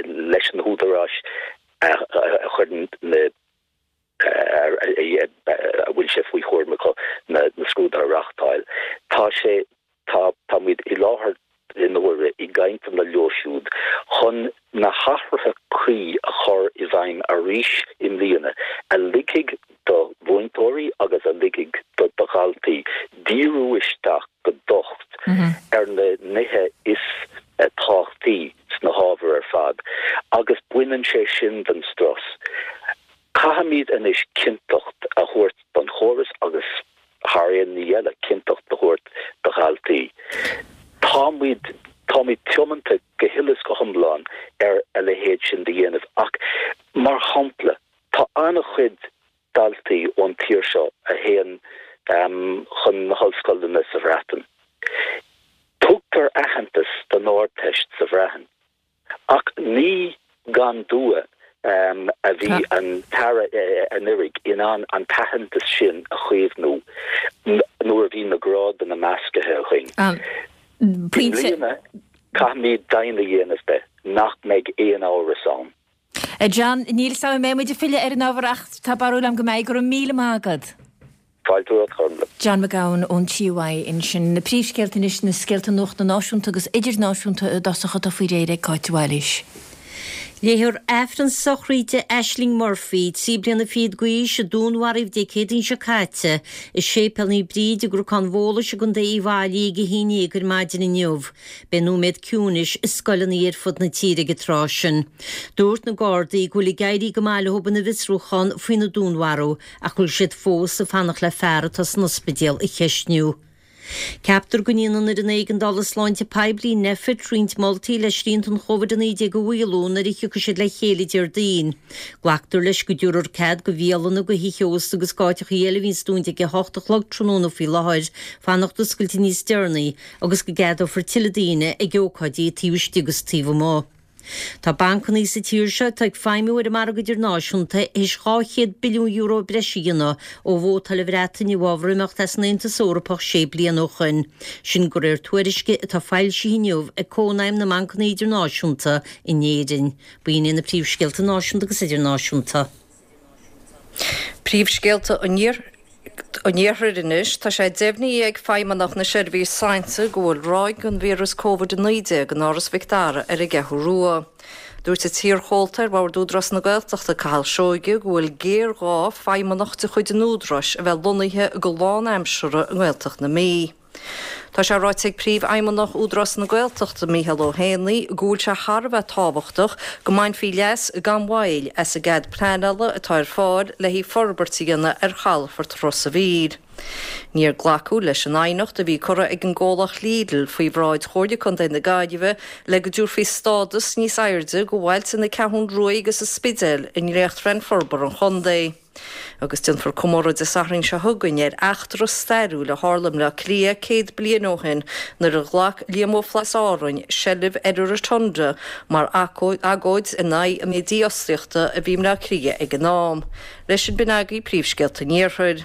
leis na húdaráis a chuireann na a bhfuil sé faoi chúram acu na scrúduithe a reáchtáil. Tá sé, tá, tá muid i láthair na huaire i gcainteanna leo siúd chun na hathruithe cuí a chur i bhfeidhm arís i mbliana a ligfidh do mhúinteoirí agus a ligfidh do dhaltaí díriú isteach go docht ar na nithe is tábhachtaí sna hábhair ar fad agus baineann sé sin den strus. Caithfimid anois cinnteacht a thabhairt don chóras agus, thar aon ní eile, cinnteacht a thabhairt do dhaltaí. Táimid, táimid tiomanta go huile is go hiomlán ar a leithéid sin de dhéanamh ach, mar shampla, tá an-chuid daltaí ón tír seo a théann chun na hollscoileanna sa Bhreatain. Tugtar aitheantas don Ardteist sa Bhreatain. Ach ní gan dua a bhí an tAire anuraidh in ann an t-aitheantas sin a chaomhnú nuair a bhí na grádanna measctha againn. I mbliana, caithfimid deimhin a dhéanamh de nach mbeidh aon amhras ann. A John, níl 'fhios a'm an mbeidh muid ag filleadh ar an ábhar ach tá barúil a'm go mbeidh. Go raibh míle maith agat. Fáilte romhat, a Ghormfhlaith. John McGowan ón TUI ansin. Na príomhscéalta anois, na scéalta nuachta náisiúnta agus idirnáisiúnta i dtosach atá faoi réir ag Cáit de Bhailís. Léifear Aifreann sochraide Ashling Murphy, 3 bliana fichead d'aois, a dúnmharaíodh Dé Céadaoin seo caite i Séipéal Naomh Bríd i gCnocán Bhólais i gContae Uíbh Fhailí ag a haon dhéag ar maidin inniu. Beidh nóiméad ciúnais i scoileanna ar fud na tíre ag an tráth sin. Dúirt na Gardaí go bhfuil ag éirí go maith leo ina bhfiosrúchán faoina dúnmharú ach go bhfuil siad fós ag fanacht le fear atá san ospidéal a cheistniú. Ceaptar go ndéanfaidh an Fhoireann Éigeandála Sláinte Poiblí, Nphet, roinnt moltaí le srianta an Chóvid-19 a mhaolú nuair a thiocfaidh siad le chéile Déardaoin. Glactar leis go dtabharfar cead go bhialanna, go thithe ósta agus d'áiteachaí eile a bhíonns dúnta ag 8 a chlog tráthnóna faoi láthair, fanacht oscailte níos deireanaí agus go gceadófar tuilleadh daoine ag ócáidí taobh istigh agus taobh amuigh. Tá bancanna sa tír seo atá ag feidhmiú ar an margadh idirnáisiúnta théis €200 billiún breise a dhéanamh ó vótáil an Bhreatain i bhfabhar imeacht as an Aontas Eorpach sé bliana ó shoin. Sin de réir tuairisce atá foilsithe inniu ag Cónaidhm na mBancanna Idirnáisiúnta in Éirinn. B'in iad na príomhscéalta náisiúnta agus idirnáisiúnta. Príomhscéalta an Iarthair anois. Tá sé deimhnithe ag Feidhmeannacht na Seirbhíse Sláinte go bhfuil ráig den víreas Covid-19 in Áras Mhic Dara ar an gCeathrú Rua. Dúirt an t-iarchomhalta ar Bhord Údarás na Gaeltachta, Cathal Seoige, go bhfuil géarghá feidhmeannach de chuid an Údaráis a bheith lonnaithe go lánaimseartha i nGaeltacht na Mí. Tá sé ráite ag Príomhfheidhmeannach Údarás na Gaeltachta, Micheál Ó hÉanaí, go bhfuil sé thar a bheith tábhachtach go mbainfí leas gan mhoill as an gcead pleanála atá ar fáil le haghaidh forbairt a dhéanamh ar chalafort Ros a' Mhíl. Níor glacadh leis an aighneacht a bhí curtha ag an gcomhlacht Lidl faoi bhráid Chomhairle Contae na Gaillimhe le go dtabharfaí stádas níos airde go bhailte na Ceathrún Ruaidh agus an Spidéil i ndréachtphlean forbartha an chontae. Agus déanfar comóradh Dé Sathairn seo chugainn ar eachtra stairiúil a tharla i mBleá Cliath 100 bliain ó shin nuair a ghlac Liam Ó Flaithearta as Árainn seilbh ar an Rotunda mar agóid in aghaidh an méid dífhostaíochta a bhí i mBleá Cliath ag an am. Leis sin b'in agaibh príomhscéalta an Iarthair.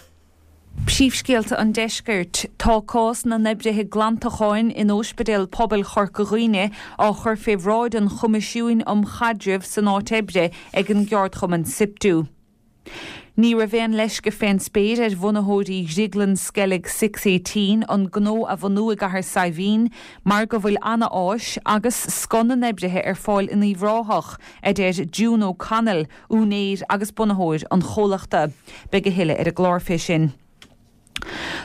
Príomhscéalta an Deiscirt. Tá cás na n-oibrithe glantacháin in Óispidéal Pobail Chorca Dhuibhne á chur fé bhráid an Choimisiúin um Chaidreamh san Áit Oibre ag an gceardchumann Siptu. Ní raibh aon leisce fén spéir ar bhunaitheoirí Dhrioglann Sceilg Six Eighteen an gnó a bhunú i gCathair Saidhbhín mar go bhfuil ana-áis agus scoth na n-oibrithe ar fáil in Uíbh Ráthach, a deir June O'Connell, úinéir agus bunaitheoir an chomhlachta. Beidh a thuilleadh ar an gclár fé sin.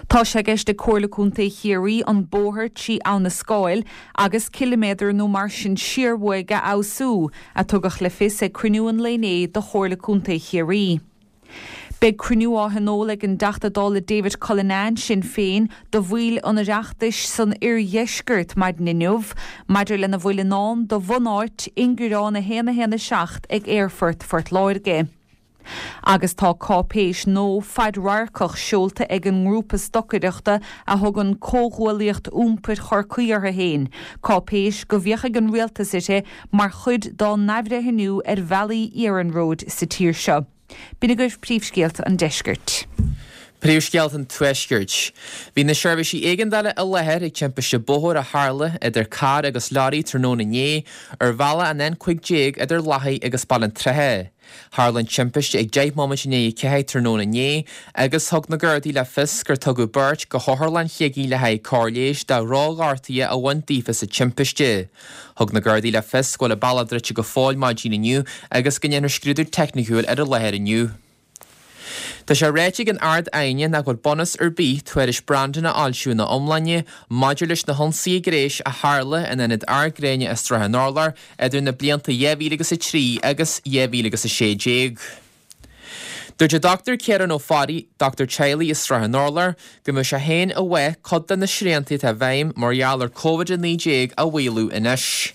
Tá sé i gceist ag Comhairle Contae Chiarraí an bóthar trí Abha na Scáil agus ciliméadar nó mar sin siar uaidh a fheabhsú, a tugadh le fios ag cruinniú an lae inné de Chomhairle Contae Chiarraí. Beidh cruinniú á thionól ag an dTeachta Dála David Cullinane, Sinn Féin, do bhaill an Oireachtais san oirdheisceart maidin inniu maidir lena bhfuil i ndán do bhunáit ingearán 1 1 7 ag Aerfort Phort Láirge. Agus tá cáipéis nua fadradharcach seolta ag an ngrúpa stocaireachta a thugann Comhghuaillíocht Iompair Chorcaí orthu féin, cáipéis go bhféachfaidh an Rialtas uirthi mar chuid dá n-athbhreithniú ar bhealaí iarnróid sa tír seo. B'in agaibh príomhscéalta an deiscirt. Príomhscéalta an Tuaiscirt. Bhí na seirbhísí éigeandála i láthair ag timpiste bóthair a tharla idir carr agus leoraí tráthnóna inné ar bhealach an N15 idir Lathaigh agus Baile an tSratha. Tharla an timpiste ag 10 móimint i ndiaidh a 4 tráthnóna inné agus thug na Gardaí le fios gur tugadh beirt go hOtharlann Shligigh le haghaidh cóir leighis de dhrochghortuithe a bhain daofa sa timpiste. Thug na Gardaí le fios go bhfuil an bealach druidte go fóill maidin inniu agus go ndéanfar scrúdú teicniciúil ar an láthair inniu. Tá sé ráite ag an Ard-Aighne nach bhfuil bunús ar bith tuairisc Brandon a fhoilsiú ina iomláine maidir leis na hionsaithe gnéis a tharla in ionad Ard Gréine i Srath an Urláir idir na blianta 2003 agus 2016. Dúirt an Dr Ciarán Ó Fearraigh, dochtúir teaghlaigh i Srath an Urláir, go mbeadh sé féin i bhfáth cuid de na srianta atá i bhfeidhm mar gheall ar Covid-19 a mhaolú anois.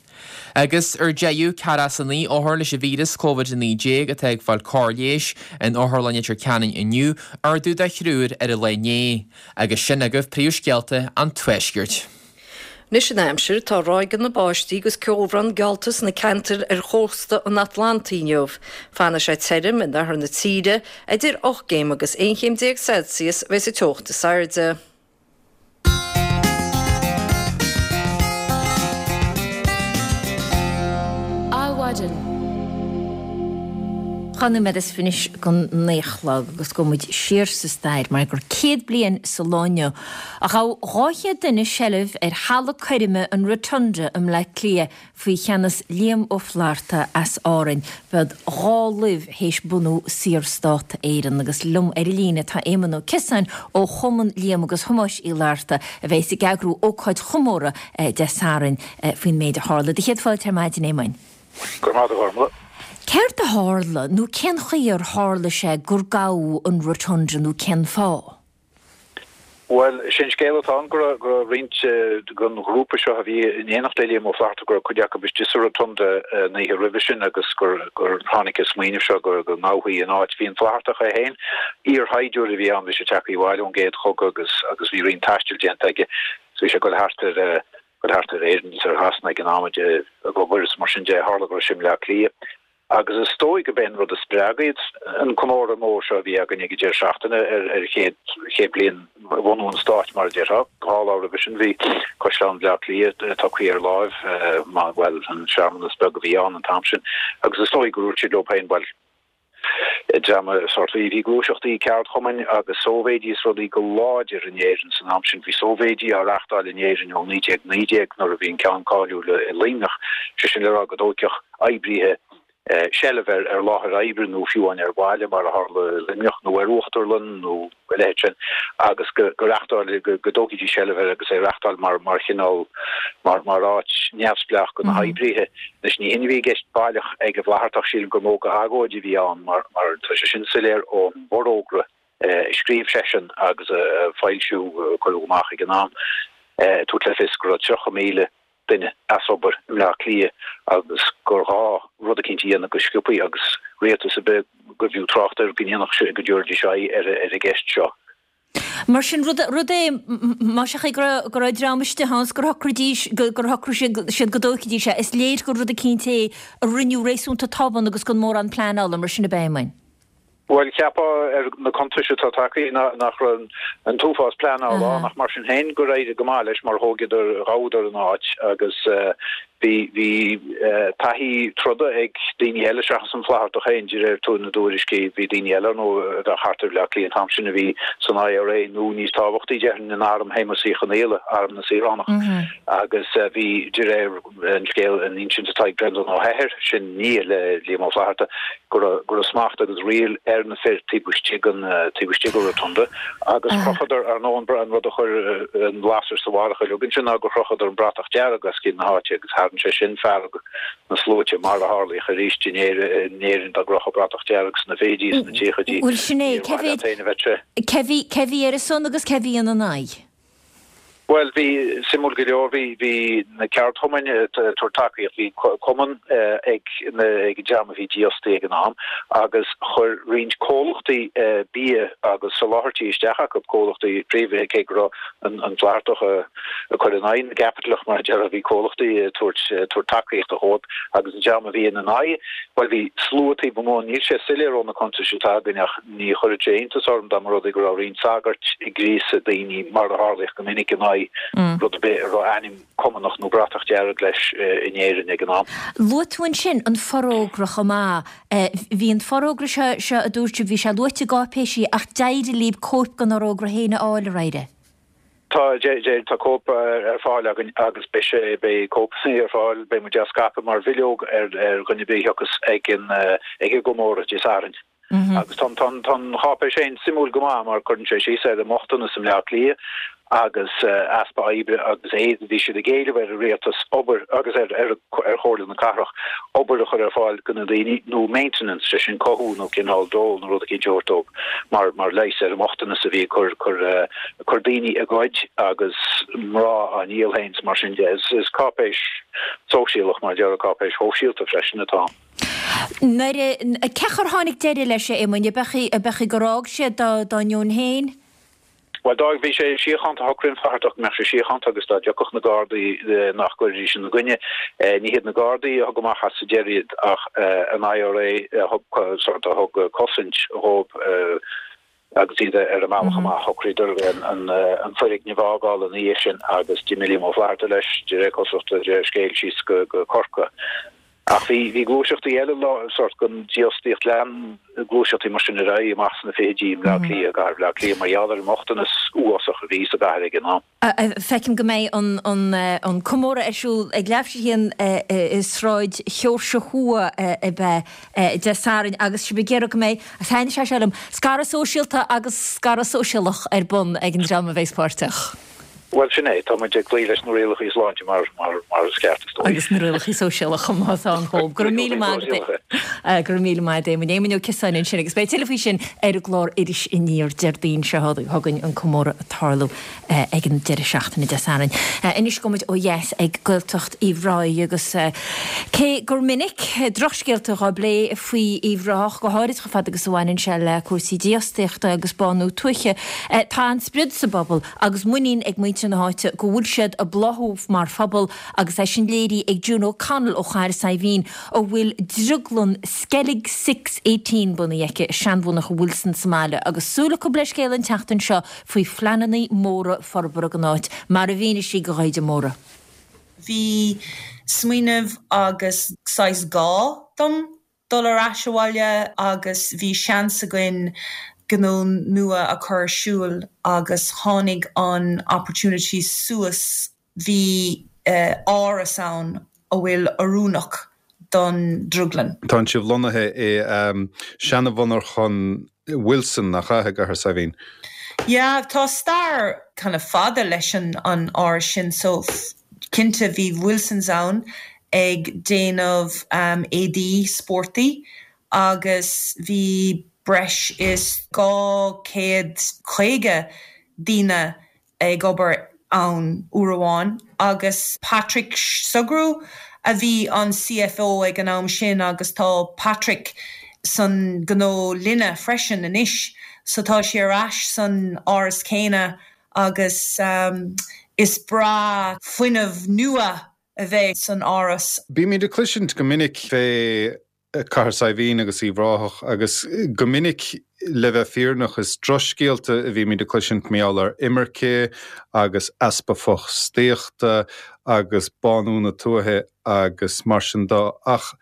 Agus ar deireadh, ceathracha is a 9 othar leis an víreas Covid-19 atá ag fáil cóir leighis in Otharlann Leitir Ceanainn inniu, ardú de thriúr ar an lá inné. Agus sin agaibh príomhscéalta an Tuaiscirt. Anois an aimsir, tá ráigeanna báistí agus ceobhrán geallta sna ceantair ar chósta an Atlantaigh inniu. Fanfaidh sé tirim in oirthear na tíre, idir 8 gcéim agus 11 chéim Celsius a bheidh sa teocht is airde. Adhmhaidin. 2 nóiméad is fiche don naoi a chlog agus gabhfaidh muid siar sa stair mar gur 100 bliain sa lá inniu a ghabh 200 duine seilbh ar halla coirme an Rotunda i mBleá Cliath faoi cheannas Liam Ó Flaithearta as Árainn. B'iad 2 laibh théis bunú Saorstát Éireann. Agus liom ar an líne tá Éamonn Ó Ciosáin ó Chumann Liam agus Thomáis Uí Fhlatharta a bheas ag eagrú ócáid chomórtha Dé Sathairn faoin méid a tharla. Do chéad fáilte ar maidin, Éamoinn. Go raibh maith agat, a Ghormlaith. Céard a tharla nó cén chaoi ar tharla sé gur gabhadh an Rotunda nó cén fáth? Bhuel, is é an scéal atá ann go raibh go raibh roinnt den ghrúpa seo a bhí in éineacht le Liam Ó Flaithearta, go raibh cuid acu istigh sa Rotunda an oíche roimhe sin agus gur gur tháinig an smaoineamh seo go go ngabhfaí an áit. Bhí an Flaitheartach é féin, iarshaighdiúir a bhí ann, bhí sé tagtha abhaile ón gcéad chogadh agus agus bhí roinnt taistil déanta aige so bhí sé ag dul thart ar dul thart ar Éirinn agus ar Shasana ag an am ag obair agus mar sin de, tharla go raibh sé i mBleá Cliath. Agus is dóigh gurb é an rud a spreag iad, an comóradh mór seo a bhí againn ag an deireadh seachtaine ar ar chéad chéad bliain bhunú an stáit, mar a déarfá. Dhá lá roimhe sin bhí Caisleán Bhleá Cliath tugtha ar láimh, bhuel, an searmanas beag a bhí ann an t-am sin. Agus is dóigh gur dhúirt siad leo féin, bhuel, dream sórt, bhí gluaiseachtaí ceardchumainn agus sóivéidí is rudaí go láidir in Éirinn san am sin. Bhí sóivéidí á reachtáil in Éirinn ó 1919 nuair a bhí an ceann cáiliúil i Luimneach, sé sin le rá go dtoghfadh oibríthe. seilbh ar ar láthair oibre nó fiú amháin ar bhaile mar a tharla i Luimneach nó ar uachtarlann nó a leithéid sin agus go go reachtáil go go dtógfaidís seilbh air agus é a reachtáil mar mar chineál mar mar áit neamhspleách do na hoibrithe. Anois ní hin a bhí i gceist baileach ag an bhFlaitheartach, sílim gur mó go agóid a bhí ann mar mar tá sé sin soiléir ón bhforógra a scríobh seisean agus a foilsiú a cuireadh amach ag an am ag tabhairt le fios go raibh 30,000 duine as obair i mBleá Cliath agus gur ghá rud eicínt a dhéanamh go sciobthaí agus rialtas ar bith gurbh fhiú trácht air go ndéanfadh sé, go dtabharfaidís aghaidh ar an gceist seo. Mar sin, rud, rud é, más ea go raibh, go raibh dream istigh ann 's gur shocraidís, gur shocraigh siad go dtógfaidís é, is léir gur rud eicínt é a rinneadh réasúnta tobann agus gan mórán pleanála, mar sin ab ea, Éamoinn? Bhuel, cheapfá ar na cuntais atá tagtha nach raibh an t-uafás pleanála ann ach mar sin féin gur éirigh go maith leis mar thóigeadar, ghabhadar an áit agus bhí, bhí taithí troda ag daoine eile seachas an Flaitheartach féin de réir na dtuairiscí. Bhí daoine eile ar ndóigh a bheadh thart ar Bhleá Cliath an t-am sin a bhí san IRA nó níos tábhachtaí déarfainn in arm Shéamuis Uí Chonaola, Arm na Saoránach agus bhí de réir an scéal, an insint atá ag Breandán Ó hEithir, sin nia le Liam Ó Flaithearta, go raibh, go raibh smacht agus riail ar na fir taobh istigh den, taobh istigh den Rotunda agus chrochadar, ar ndóigh, an, an rud a chuir an lasair sa bharrach uilig ansin ná gur chrochadar an bratach dearg os cionn na háite agus tharraing sé sin fearg na sluaite mar a tharlaíodh arís in Éirinn, in Éirinn dá gcrochadh bratach dearg sna fichidí, sna tríochaidí, Bhuel sin é, níor cé mhaith leat mhéad, féin a bheith sé. cé bhí, cé bhí ar a son agus cé bhí ina n-aghaidh? Bhuel, bhí, suimiúil go leor, bhí, bhí na ceardchumainn ag tabhairt tacaíocht, bhí cumann ag na, ag an dream a bhí dífhostaithe ag an am agus chuir roinnt comhlachtaí bia agus soláthairtí isteach acu, comhlachtaí príomhaithe, cé go raibh an, an Flaitheartach ag cur in aghaidh na gcaipitleach mar a déarfá, bhí comhlachtaí ag tabhairt, tabhairt tacaíochta dhóibh agus an dream a bhí ina n-aghaidh, bhuel bhí slua taobh amuigh, níl sé soiléir ó na cuntais atá againn ach. Ní chuirfeadh sé iontas orm dá mba rud é go raibh roinnt sagairt ag gríosadh daoine, mar a tharlaíodh go minic, in aghaidh rud ar bith a raibh ainm Cumannach nó bratach dearg leis in Éirinn ag an am. Luaigh tú ansin an forógra chomh maith. Bhí an forógra seo, seo a dúirt sibh, bhí sé luaite i gcáipéisí ach d'éirigh libh cóip den fhorógra féin a fháil, ar éirigh? Tá, tá cóip ar fáil againn agus beidh sé, beidh cóipeanna ar fáil, beidh muid á scaipeadh mar bhileog ar dhuine ar bith a thiocfas ag an, ag an gcomóradh Dé Sathairn. Agus tá an cháipéis féin suimiúil go maith mar cuireann sé síos ar an mbochtanas i mBleá Cliath agus easpa oibre agus éad. Bhí siad ag éileamh ar an rialtas obair agus ar ar Chomhairle na Cathrach obair a chur ar fáil do na daoine nó maintenance, sé sin cothú nó cineál dól nó rud eicínt a thabhairt dóibh mar mar leigheas ar an mbochtanas a bhí ag cur cur cur daoine ag goid agus mná á ndíol féin is mar sin de. Is cáipéis sóisialach mar a déarfá, cáipéis shóisialta freisin atá ann. Nuair a, cén chaoi ar tháinig deireadh leis, a Éamoinn, ab é gur fhág sé dá ndeoin féin? Bhuel, d'fhág, bhí sé síochánta, shocraigh an Flaitheartach go mbeadh sé síochánta agus dá dtiocfadh na Gardaí nach gcuirfidís ina gcoinne. Ní hiad na Gardaí a thug amach as sa deireadh iad ach an IRA a thug, sort, a thug cosaint dhóibh. Agus iad ar a mbealach amach, shocraíodar an foirgneamh a fhágáil ina dhiaidh sin agus d'imigh Liam Ó Flaithearta leis, de réir cosúlachta, de réir scéil, síos go Corcaigh. Ach bhí bhí gluaiseachtaí eile, sórt den dífhostaíocht, lean gluaiseachtaí mar sin ar aghaidh amach sna fichidí i mBleá Cliath, i gcathair Bhleá Cliath, mar gheall ar an mbochtanas uafásach a bhí sa gcathair ag an am. Feicim go mbeidh an comóradh ar siúl ag leathuair tar éis a haon i Sráid Sheoirse Thuaidh ab ea Dé Sathairn agus sibh ag iarraidh go mbeidh, thaitnigh sé seo liom, scaradh sóisialta agus scaradh sóisialach ar bun ag an dream a bheas páirteach. Bhuel, sin é, tá muid ag cloí leis na rialacha sláinte mar mar is ceart, is dóigh. Agus na rialacha sóisialacha chomh maith atá ann chomh. Go raibh míle maith agat, go raibh míle maith agat Éamoinn. Éamoinn Ó Ciosáin ansin agus beidh tuilleadh faoi sin ar an gclár Iris Aniar Déardaoin seo chugainn an comóradh ag tarlú. ag an deireadh seachtaine Dé Sathairn. Anois gabhfaidh muid ó dheas ag Gaeltacht Uíbh Ráthaigh agus cé gur minic drochscéalta dhá bplé faoi Uíbh Ráthach, go háirid chomh fada agus a bhaineann sé le cúrsaí dífhostaíochta agus bánú tuaithe, tá an-sprid sa bpobal agus muinín ag muintir na háite go bhfuil siad ag bláthú mar phobal agus é sin léirithe ag June O'Connell ó Chathair Saidhbhín a bhfuil drioglann Skellig Six 18 bunaithe aici i seanmhonarcha Wilson sa mbaile agus súil acu le scéal an tseachtain seo faoi phleananna móra forbartha don áit, mar a mhínigh sí do Dhaighde Mórdha. Bhí smaoineamh agus saghas gá dom dul ar ais abhaile agus bhí seans againn gnó nua a chur ar siúl agus tháinig an opportunity suas, bhí áras ann a bhfuil oiriúnach. don drioglann. Tánn sibh lonnaithe i seana-mhonarchan Wilson, nach ea, i gCathair Saidhbhín? Yeah, tá stair kind of fada leis an an áras sin so cinnte bhí Wilsons ann ag déanamh éadaí spórtaí agus bhí breis is 250 daoine ag obair ann uair amháin agus Patrick Sugrue a bhí an CFO ag an am sin agus tá Patrick san gnó linne freisin anois so tá sé ar ais san áras céanna agus is breá fuinneamh nua a bheith san áras. Bímid ag cloisint go minic fé Cathair Saidhbhín agus Uíbh Ráthach agus go minic, le bheith fírinneach, is drochscéalta a bhímid ag cloisint mar gheall ar imirce agus easpa fostaíochta agus bánú na tuaithe agus mar sin de. Ach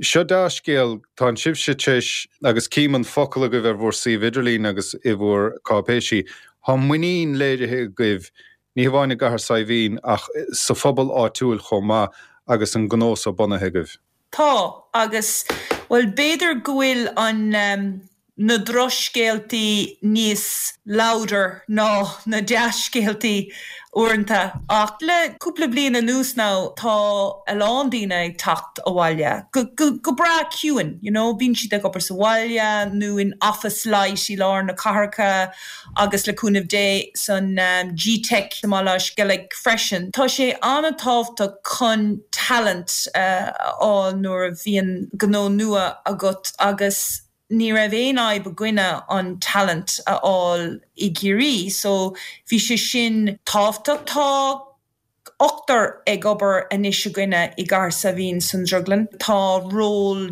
seo dea-scéal, tánn sibhse tar éis, agus cím an focal agaibh ar bhur suíomh idirlín agus i bhur cáipéisí, tá muinín léirithe agaibh ní hamháin i gCathair Saidhbhín ach sa phobal áitiúil chomh maith agus an gnó so bunaithe agaibh. Tá, agus, bhuel, b'fhéidir go bhfuil an, na drochscéaltaí níos louder ná na dea-scéaltaí uaireanta, ach le cúpla bliain anuas now tá a lán daoine ag teacht abhaile, go, go, go breá ciúin, you know, bíonn siad ag obair sa bhaile nó in office light i lár na cathracha agus le cúnamh Dé san G-Teic i mBaile Átha Sceilg freisin. Tá sé an-tábhachtach chun talent a fháil nuair a bhíonn gnó nua agat agus ní raibh aon fhadhb againne an talent a fháil i gCiarraí so bhí sé sin tábhachtach. Tá ochtar ag obair anois againne i gCathair Saidhbhín san drioglann. Tá ról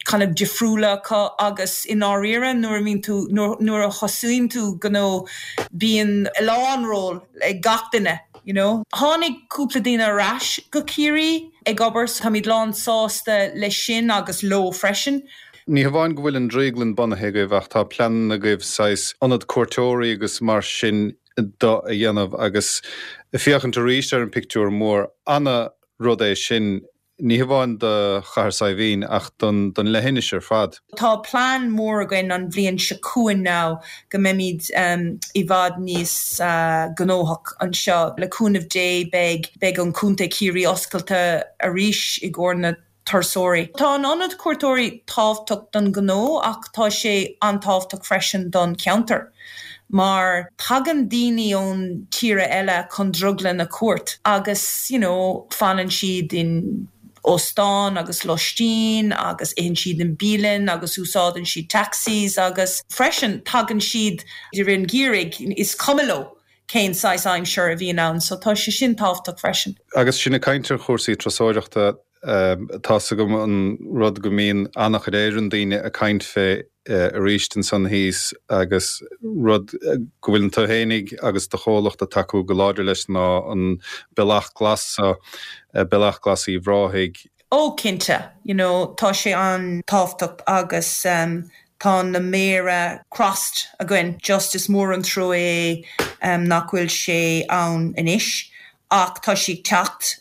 kind of difriúla acu agus i ndáiríre nuair a bhíonn tú, nuair a thosaíonn tú gnó bíonn a lán ról ag gach duine you know. Tháinig cúpla daoine ar ais go Ciarraí ag obair so táimid lán sásta leis sin agus leo freisin. Ní hamháin go bhfuil an drioglann bunaithe agaibh ach tá pleananna agaibh saghas ionad cuairteoirí agus mar sin de a dhéanamh agus féachaint arís ar an pictiúr mór. Ana rud é sin, ní hamháin do Chathair Saidhbhín ach don don leithinis ar fad. Tá plean mór againn an bhliain seo chugainn now go mbeimid i bhfad níos gnóthach anseo. Le cúnamh Dé beidh beidh an Contae Ciarraí oscailte arís i gcomhair na turasóirí. Tá an ionad cuairteoirí tábhachtach don ghnó ach tá sé an-tábhachtach freisin don cheantar mar tagann daoine ón tíre eile chun drioglann a cuairt agus you know fanann siad in óstán agus lóistín agus itheann siad in bialann agus úsáideann siad taxis agus freisin tagann siad i rith an gheimhridh is cuma leo cén saghas aimsir a bhíonn ann so tá sé sin tábhachtach freisin. Agus sinn ag caint ar chúrsaí turasóireachta, tá's agam an rud go mbíonn an-chuid Éireann daoine ag caint fé arís ansan thíos agus rud go bhfuileann tú fhéinig agus do chomhlacht ag tacú go láidir leis ná an Bealach Glas so, Bealach Glas Uíbh Ráthaigh. Ó cinnte, you know tá sé an-tábhachtach agus tá na méara crossed againn, just is mór an trua é nach bhfuil sé ann anois ach tá sé ag teacht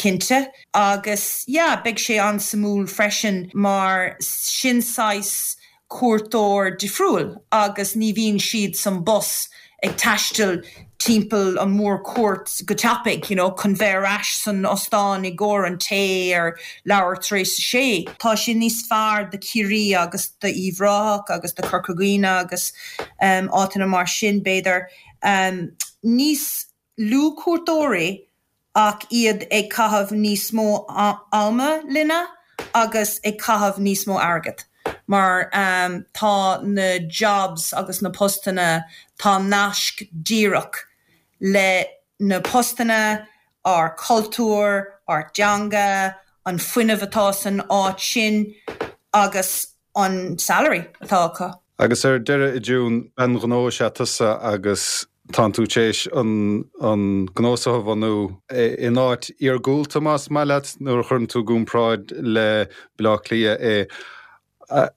cinnte agus yeah beidh sé an-suimiúil freisin mar sin saghas cuairteoir difriúil agus ní bhíonn siad san bus ag taisteal timpeall an mhórchuairt go tapaidh, you know, chun bheith ar ais san ostán i gcomhair an tae ar leathuair tar éis a sé. Tá sé níos fearr do Chiarraí agus do Uíbh Ráthach agus do Chorca Dhuibhne agus áiteanna mar sin, b'fhéidir. Níos lú cuairteoirí ach iad ag caitheamh níos mó ama linne agus ag caitheamh níos mó airgead mar tá na jobs agus na postanna, tá naisc díreach le na postanna, ár cultúr, ár dteanga, an fuinneamh atá san áit sin agus. an salary atá acu. Agus ar deireadh, a June, bean ghnó is ea tusa agus tánn tú tar éis an an gnó so a bhunú in áit iargúlta, más maith leat, nuair a chuireann tú i gcomparáid le Baile Átha Cliath é,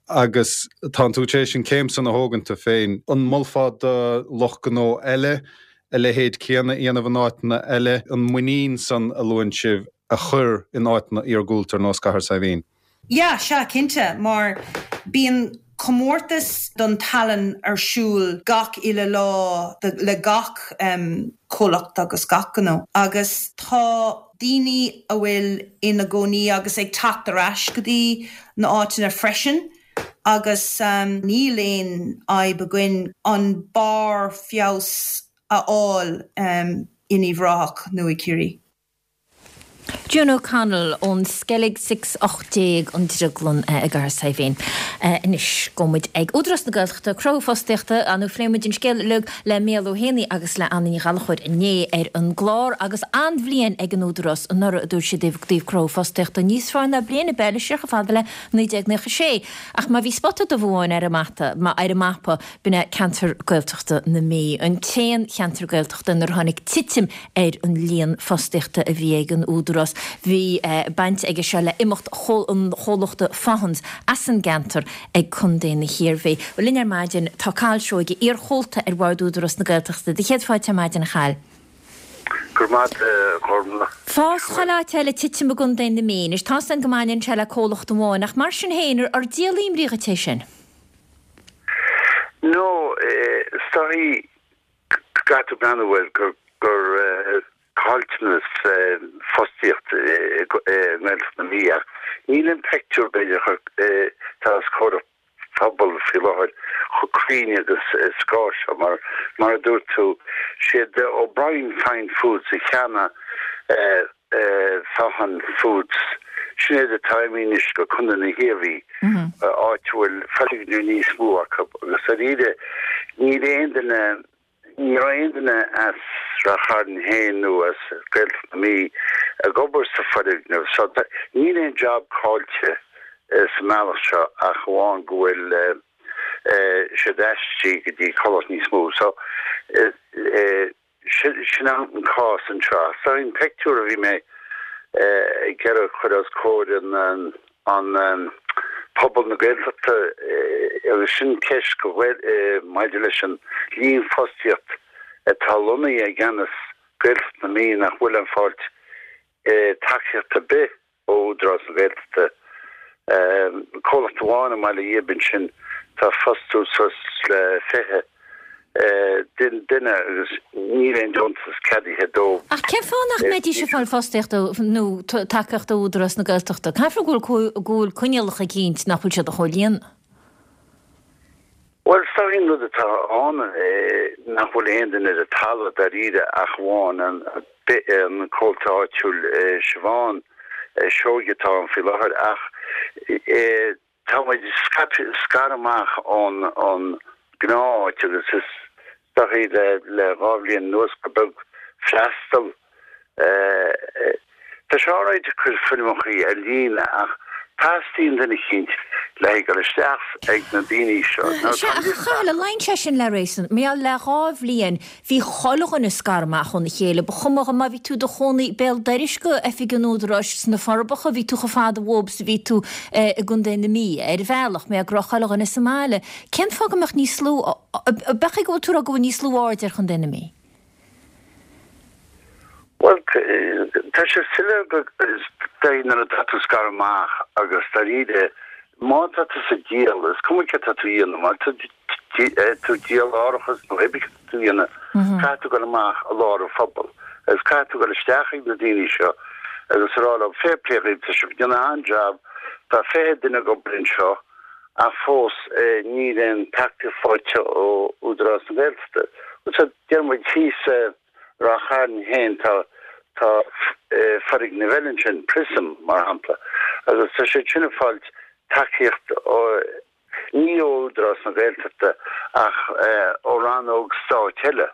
agus tánn tú tar éis an céim san a thógaint tú féin. An molfá do lucht gnó eile a leithéid céanna a dhéanamh in áiteanna eile, an muinín san a luann sibh a chur in áiteanna iargúlta ar nós Cathair Saidhbhín? Yeah, sea, cinnte, mar bíonn comórtas don tallann ar siúl gach uile lá le gach comhlacht agus gach gnó agus tá daoine a bhfuil ina gcónaí agus ag teacht ar ais go dtí na áiteanna freisin agus níl aon fhadhb againn an barr feabhas a fháil in Uíbh Ráthach nó i Ciarraí. June O'Connell ón Skellig Six 18 an Drioglann i gCathair Saidhbhín. Anois gabhfaidh muid ag Údarás na Gaeltachta, cruthú fostaíochta, nó phléigh muid an scéal uilig le Mícheál Ó hÉanaí agus le Anna Ní Ghallchóir inné ar an gclár agus an-bhliain ag an Údarás anuraidh a dúirt siad i dtaobh cruthú fostaíochta, níos fearr ná bliain ar bith eile siar chomh fada le 1996. Ach má bhí spota dubh amháin ar an mata, ar an mapa, b'in é ceantar Gaeltachta na Mí, an t-aon cheantar Gaeltachta inar tháinig titim ar an líon fostaíochta a bhí ag an Údarás. Bhí baint aige seo le imeacht an chomhlachta Faughan's as an gceantar ag Contae na hIarmhí. Bhuel, linn ar maidin tá Cathal Seoige, iar-chomhalta ar Bhord Údarás na Gaeltachta. Do chéad fáilte ar maidin, a Chathail. Go raibh maith agat, a Ghormfhlaith. Fás chuile áit eile, titim i gContae na Mí. Anois, tá's againn go mbaineann sé le comhlacht amháin, ach mar sin féin, ar díol imní dhuit é sin? No, is dóichí go gcaithfidh tú breathnú air gur gur caillteanas fostaíocht i nGaeltacht na Mí ach níl an peictiúr b'fhéidir atá os comhair an phobail faoi láthair chomh cruinn agus is gá seo mar mar a dúirt tú siad O'Brien Fine Foods a cheannaigh Faughan Foods sin iad atá imithe anois go Contae na hIarmhí áit a bhfuil foirgneamh níos mó acu agus dáiríre níl aon duine, ní raibh aon duine as Rath Chairn féin nó as Gaeltacht na Mí ag obair sa foirgneamh so níl aon job caillte sa mbealach seo ach amháin go bhfuil siad aistrithe go dtí comhlacht níos mó so Sin an cás anseo. So an pictiúr a bhí mé ag iarraidh a chur os comhair an pobal na Gaeltachta agus sin ceist go maidir leis an líon fostaíocht atá lonnaithe i gceannas Gaeltacht na Mí nach bhfuil ag fáilt tacaíocht ar bith ó Údarás na Gaeltachta. Comhlacht amháin i mBaile Ghib ansin tá ag fostú suas le 20 duine agus níl aon deontas ceadaithe dóibh. Ach cén fáth nach mbeidís ag fáil fostaíocht nó tacaíocht ó Údarás na Gaeltachta? Caithfear go bhfuil coinníollacha eicínt nach bhfuil siad a chomhlíonadh. Bhuel, is dóichí an rud atá ann nach bhfuil aon duine ar an talamh dáiríre ach amháin an comhalta áitiúil Siobhán Seoige atá ann faoi láthair ach tá muid scaipthe, scartha amach ón gnáth-áit agus is dóichí le le 2 bhliain anuas gur beag freastal Tá sé alright ag cur foirmeachaí ar líne ach teastaíonn duine eicínt le haghaidh dul isteach ag na daoine seo. Now Sea, tá ach a Chathail, luíonn sé sin le réasún. Mar gheall le 2 bhliain bhí chuile dhuine scartha amach óna chéile. Ba chuma má bhí tú i do chónaí béal dorais go oifig an Údaráis sna Forbacha, bhí tú chomh fada uathub is a bhí tú i gContae na Mí, ar bhealach, mar gheall go raibh chuile dhuine sa mbaile. Cén fáth go mbeadh níos lú, ab é go bhfuil tú ag rá go bhfuil níos lú aird ar Chontae na Mí? Bhuel, tá sé soiléir go dtí nuair atá tú scartha amach agus dáiríre, má tá tú ag díol, is cuma céard tá tú a dhéanamh, má tá tú ag díol árachas nó pé ar bith céard tá tú a dhéanamh, caithfidh tú dul amach i lár an phobail agus caithfidh tú dul isteach ag na daoine seo agus a rá leo, fair play dhaoibh, tá sibh ag déanamh an-jab, tá 20 duine ag obair anseo ach fós níl aon tacaíocht faighte ó Údarás na Gaeltachta. So, deir muid thíos i Ráth Chairn féin tá tá foirgneamh eile ansin, Prism mar shampla, agus tá siad sin ag fáilt tacaíocht ó, ní ó Údarás na Gaeltachta ach ó rannóg stáit eile.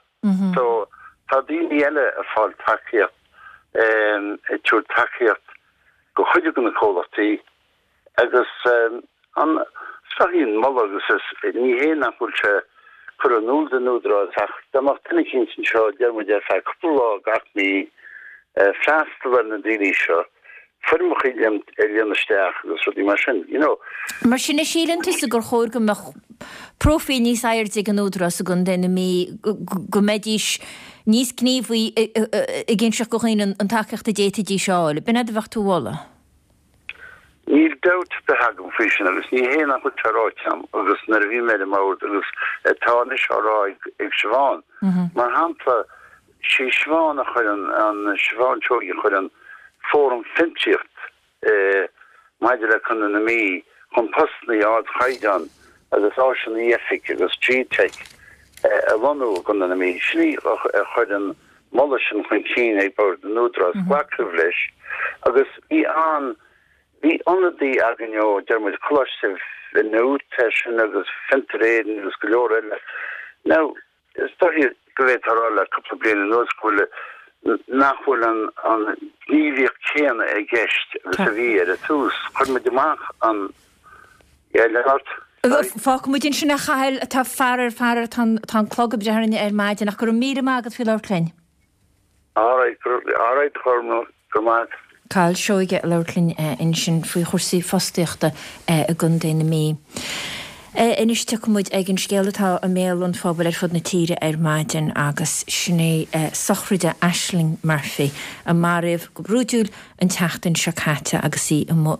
So tá daoine eile ag fáil tacaíocht, ag tabhairt tacaíocht go chuid de na comhlachtaí Agus an sraithín moladh agus is ní hé nach bhfuil sé curtha in iúl don Údarás ach dá mbeadh duine eicínt anseo, deir muid, ar feadh cúpla lá gach mí, freastal ar na daoine seo, foirmeacha a líonadh isteach agus rudaí mar sin, you know. Mar sin, an síleann tusa gur chóir go mbeadh próifíl níos airde ag an Údarás i gContae na Mí, go mbeidís níos gníomhaí ag inseacht go dhaoine an tacaíocht a d'fhéadfaidís a fháil? B'in é a bheadh tú a mholadh? Níl dabht ar bith agam faoi sin agus ní hé nach bhfuil sé ráite agam agus nuair a bhí mé ar an mbord agus atá anois á rá ag Siobhán. Mar shampla, sí Siobhán a chuir an, an Siobhán Seoighe a chuir an Fóram Fiontraíocht maidir le Contae na Mí chun postanna ardchaighdeán agus áiseanna oifige agus G-Teic a lonnú i gContae na Mí. Sin í a chuir an moladh sin chun cinn ag Bord an Údarás. Glacadh leis agus bhí an, bhí ionadaí againn ó, deir muid, Coláiste Newt sin agus Fiontar Éireann agus go leor eile. Now, Is dóiche go bhféadfá a rá le cúpla bliain anuas go bhfuil, nach bhfuil an ghníomhaíocht chéanna i gceist agus a bhí ar an tús. Chuir muid amach an, yeah, lean ort, sorry. Fágfaidh muid ansin a Chathail, tá faraor, faraor, tá an clog ag breith orainn ar maidin ach go raibh míle maith agat faoi labhairt linn. Alright, alright, go raibh maith. Cathal Seoige ag labhairt linn ansin faoi chúrsaí fostaíochta i gContae na Mí. Anois tiocfaidh muid ag an scéal atá i mbéal an phobail ar fud na tíre ar maidin agus sin é sochraid Ashling Murphy a maraíodh go brúidiúil an tseachtain seo caite agus í i mbun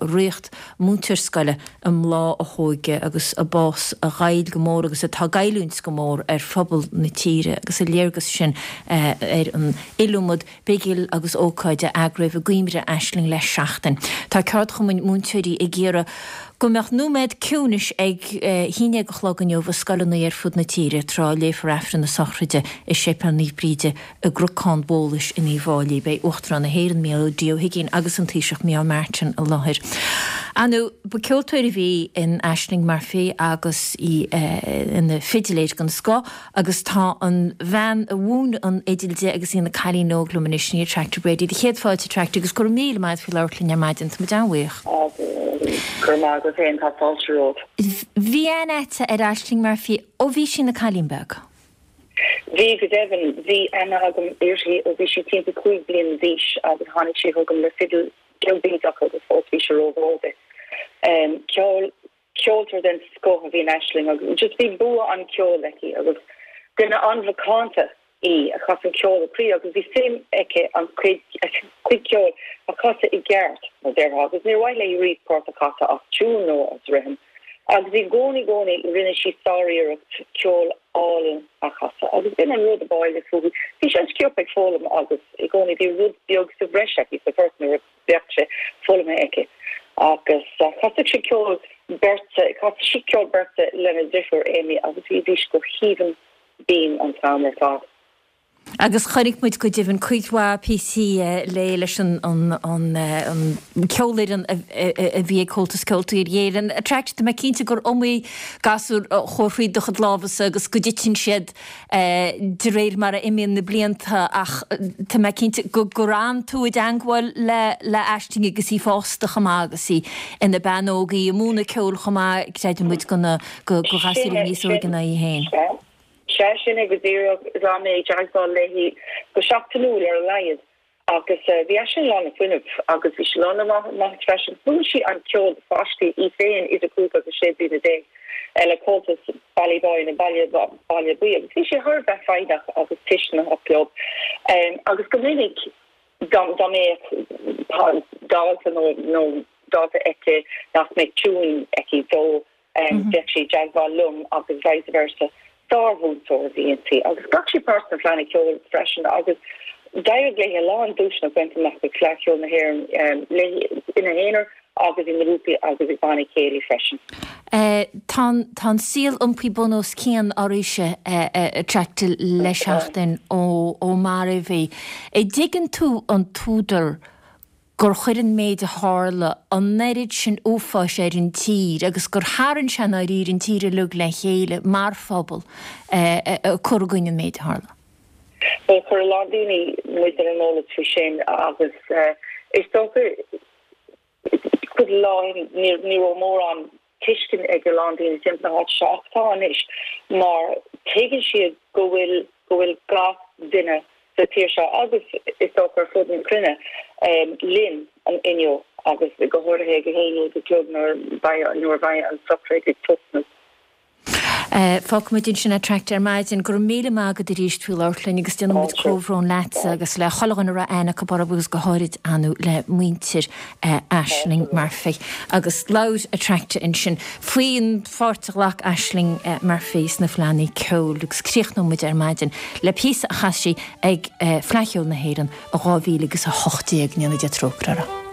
múinteoir scoile i mbláth a hóige agus a bás a ghoill go mór agus atá ag goilliúint go mór ar phobal na tíre agus a léargas sin ar an iliomad bigil agus ócáid a eagraíodh i gcuimhne Ashling le seachtain. Tá ceardchumainn múinteoirí ag iarraidh go mbeadh nóiméad ciúnais ag a haon déag a chlog inniu i scoileanna ar fud na tíre tráth a léifear Aifreann na sochraide i Séipéal Naomh Bríde i gCnocán Bhólais in Uíbh Fháilí. Beidh Uachtarán na hÉireann, Micheál D. Ó hUigínn agus an Taoiseach Micheál Martin i láthair. Ar ndóigh, ba ceoltóir a bhí in Ashling Murphy agus í ina fidiléir den scoth agus tá an bhean a mhúin an fhidil di agus í ina cailín óg liom anois, sin í Attracta Brady. Do chéad fáilte Attracta agus go raibh míle maith agat faoi labhairt linn ar maidin. Tá muid an-bhuíoch. Go raibh maith agat féin, tá fáilte romhat. Bhí aithne agat ar Ashling Murphy ó bhí sí ina cailín beag. Bhí, go deimhin. Bhí aithne agam uirthi ó bhí sí timpeall 5 bliana d'aois agus tháinig sí chugam le fidil beag bídeach agus fós bhí sé rómhór di. Ceol, ceoltóir den scoth a bhí in Aisling agus just bhí bua an cheoil aici agus duine an-mhacánta í a chas an ceol ó chroí agus bhí suim aici an cuid, a cuid ceoil a chasadh i gceart, mar déarfá, agus níor mhaith léi riamh port a chasadh as tiún nó as rithim. Agus i gcónaí, gcónaí, rinne sí sáriarracht ceol álainn a chasadh. Agus b'in an rud ab áille fúithi. Bhí sí an-sciobtha ag foghlaim agus i gcónaí bhí rud beag sa bhreis aici sa phort nuair a bheadh sé foghlamtha aici. Agus chasadh sí ceol beirte, chasadh sí ceol beirte lena deirfiúr Amy agus bhídís go haoibhinn binn an t-am ar fad. Agus chonaic muid go deimhin cuid mhaith píosaí léi leis an cheolfhoireann a bhí ag Comhaltas Ceoltóirí Éireann. Attracta, tá mé cinnte gur iomaí gasúr a chuaigh thríd do chuid lámhasa agus go dtiteann siad de réir mar a imíonn na blianta ach tá mé cinnte gur fhan tú i dteangmháil le Aisling agus í fásta chomh maith agus í ina bean óg, í ag múineadh ceoil chomh maith, creideann muid, do ghasúirí níos óige ná í féin. Sea, sin é go díreach. D'fhan mé i dteagmháil léi go seachtainiúil ar a laghad agus bhí Aisling lán le fuinneamh agus bhí sí lán le maitheas freisin. Mhúin sí an ceol do pháistí, í féin idir 5 agus 16 bliana le Comhaltas Ballyboy nó Baile Baile Buí agus bhí sí thar a bheith foighneach agus tuisceanach leo agus go minic dá mbeadh dalta nó dalta aici nach mbeadh tiúin aici dó Bheadh sí i dteagmháil liom agus vice versa. Sármhúinteoir a bhí inti agus ghlac sí páirt sna Fleadhanna Ceoil freisin agus d'éirigh léi a lán duaiseanna a bhaint amach ag Fleadh Cheoil na hÉireann léi ina haonar agus i ngrúpaí agus ag bannaí céilí freisin. Tá an saol iompaithe bun os cionn arís Attracta le seachtain ó maraíodh í. An dtuigeann tú an t-údar gur chuir an méid a tharla an oiread sin uafáis ar an tír agus gur tharraing sé i ndáiríre an tír uilig le chéile mar phobal ag cur i gcoinne an méid a tharla. Bhuel, chuir a lán daoine muid ar an eolas faoi sin agus is dócha cúpla lá ó shin ní raibh mórán tuiscint ag a lán daoine timpeall na háite seo ach tá anois mar tuigeann siad go bhfuil go bhfuil gach duine sa tír seo agus is dócha ar fud na cruinne linn inniu agus go háirithe ag a haon déag a chlog nuair nuair a bheidh an sochraid ag tosnú. Fágfaimid ansin Attracta ar maidin. Go raibh míle maith agat arís faoi labhairt linn agus déanann muid comhbhrón leatsa agus le chuile dhuine a raibh aithne acu oraibh agus go háirid ar ndóigh le muintir Ashling Murphy. Agus labhair Attracta ansin faoin pháirt a ghlac Ashling Murphy sna Fleadhanna Ceoil agus críochnóidh muid ar maidin le píosa a chas sí ag Fleadh Cheoil na hÉireann i 2018, go ndéana Dia trócaire uirthi.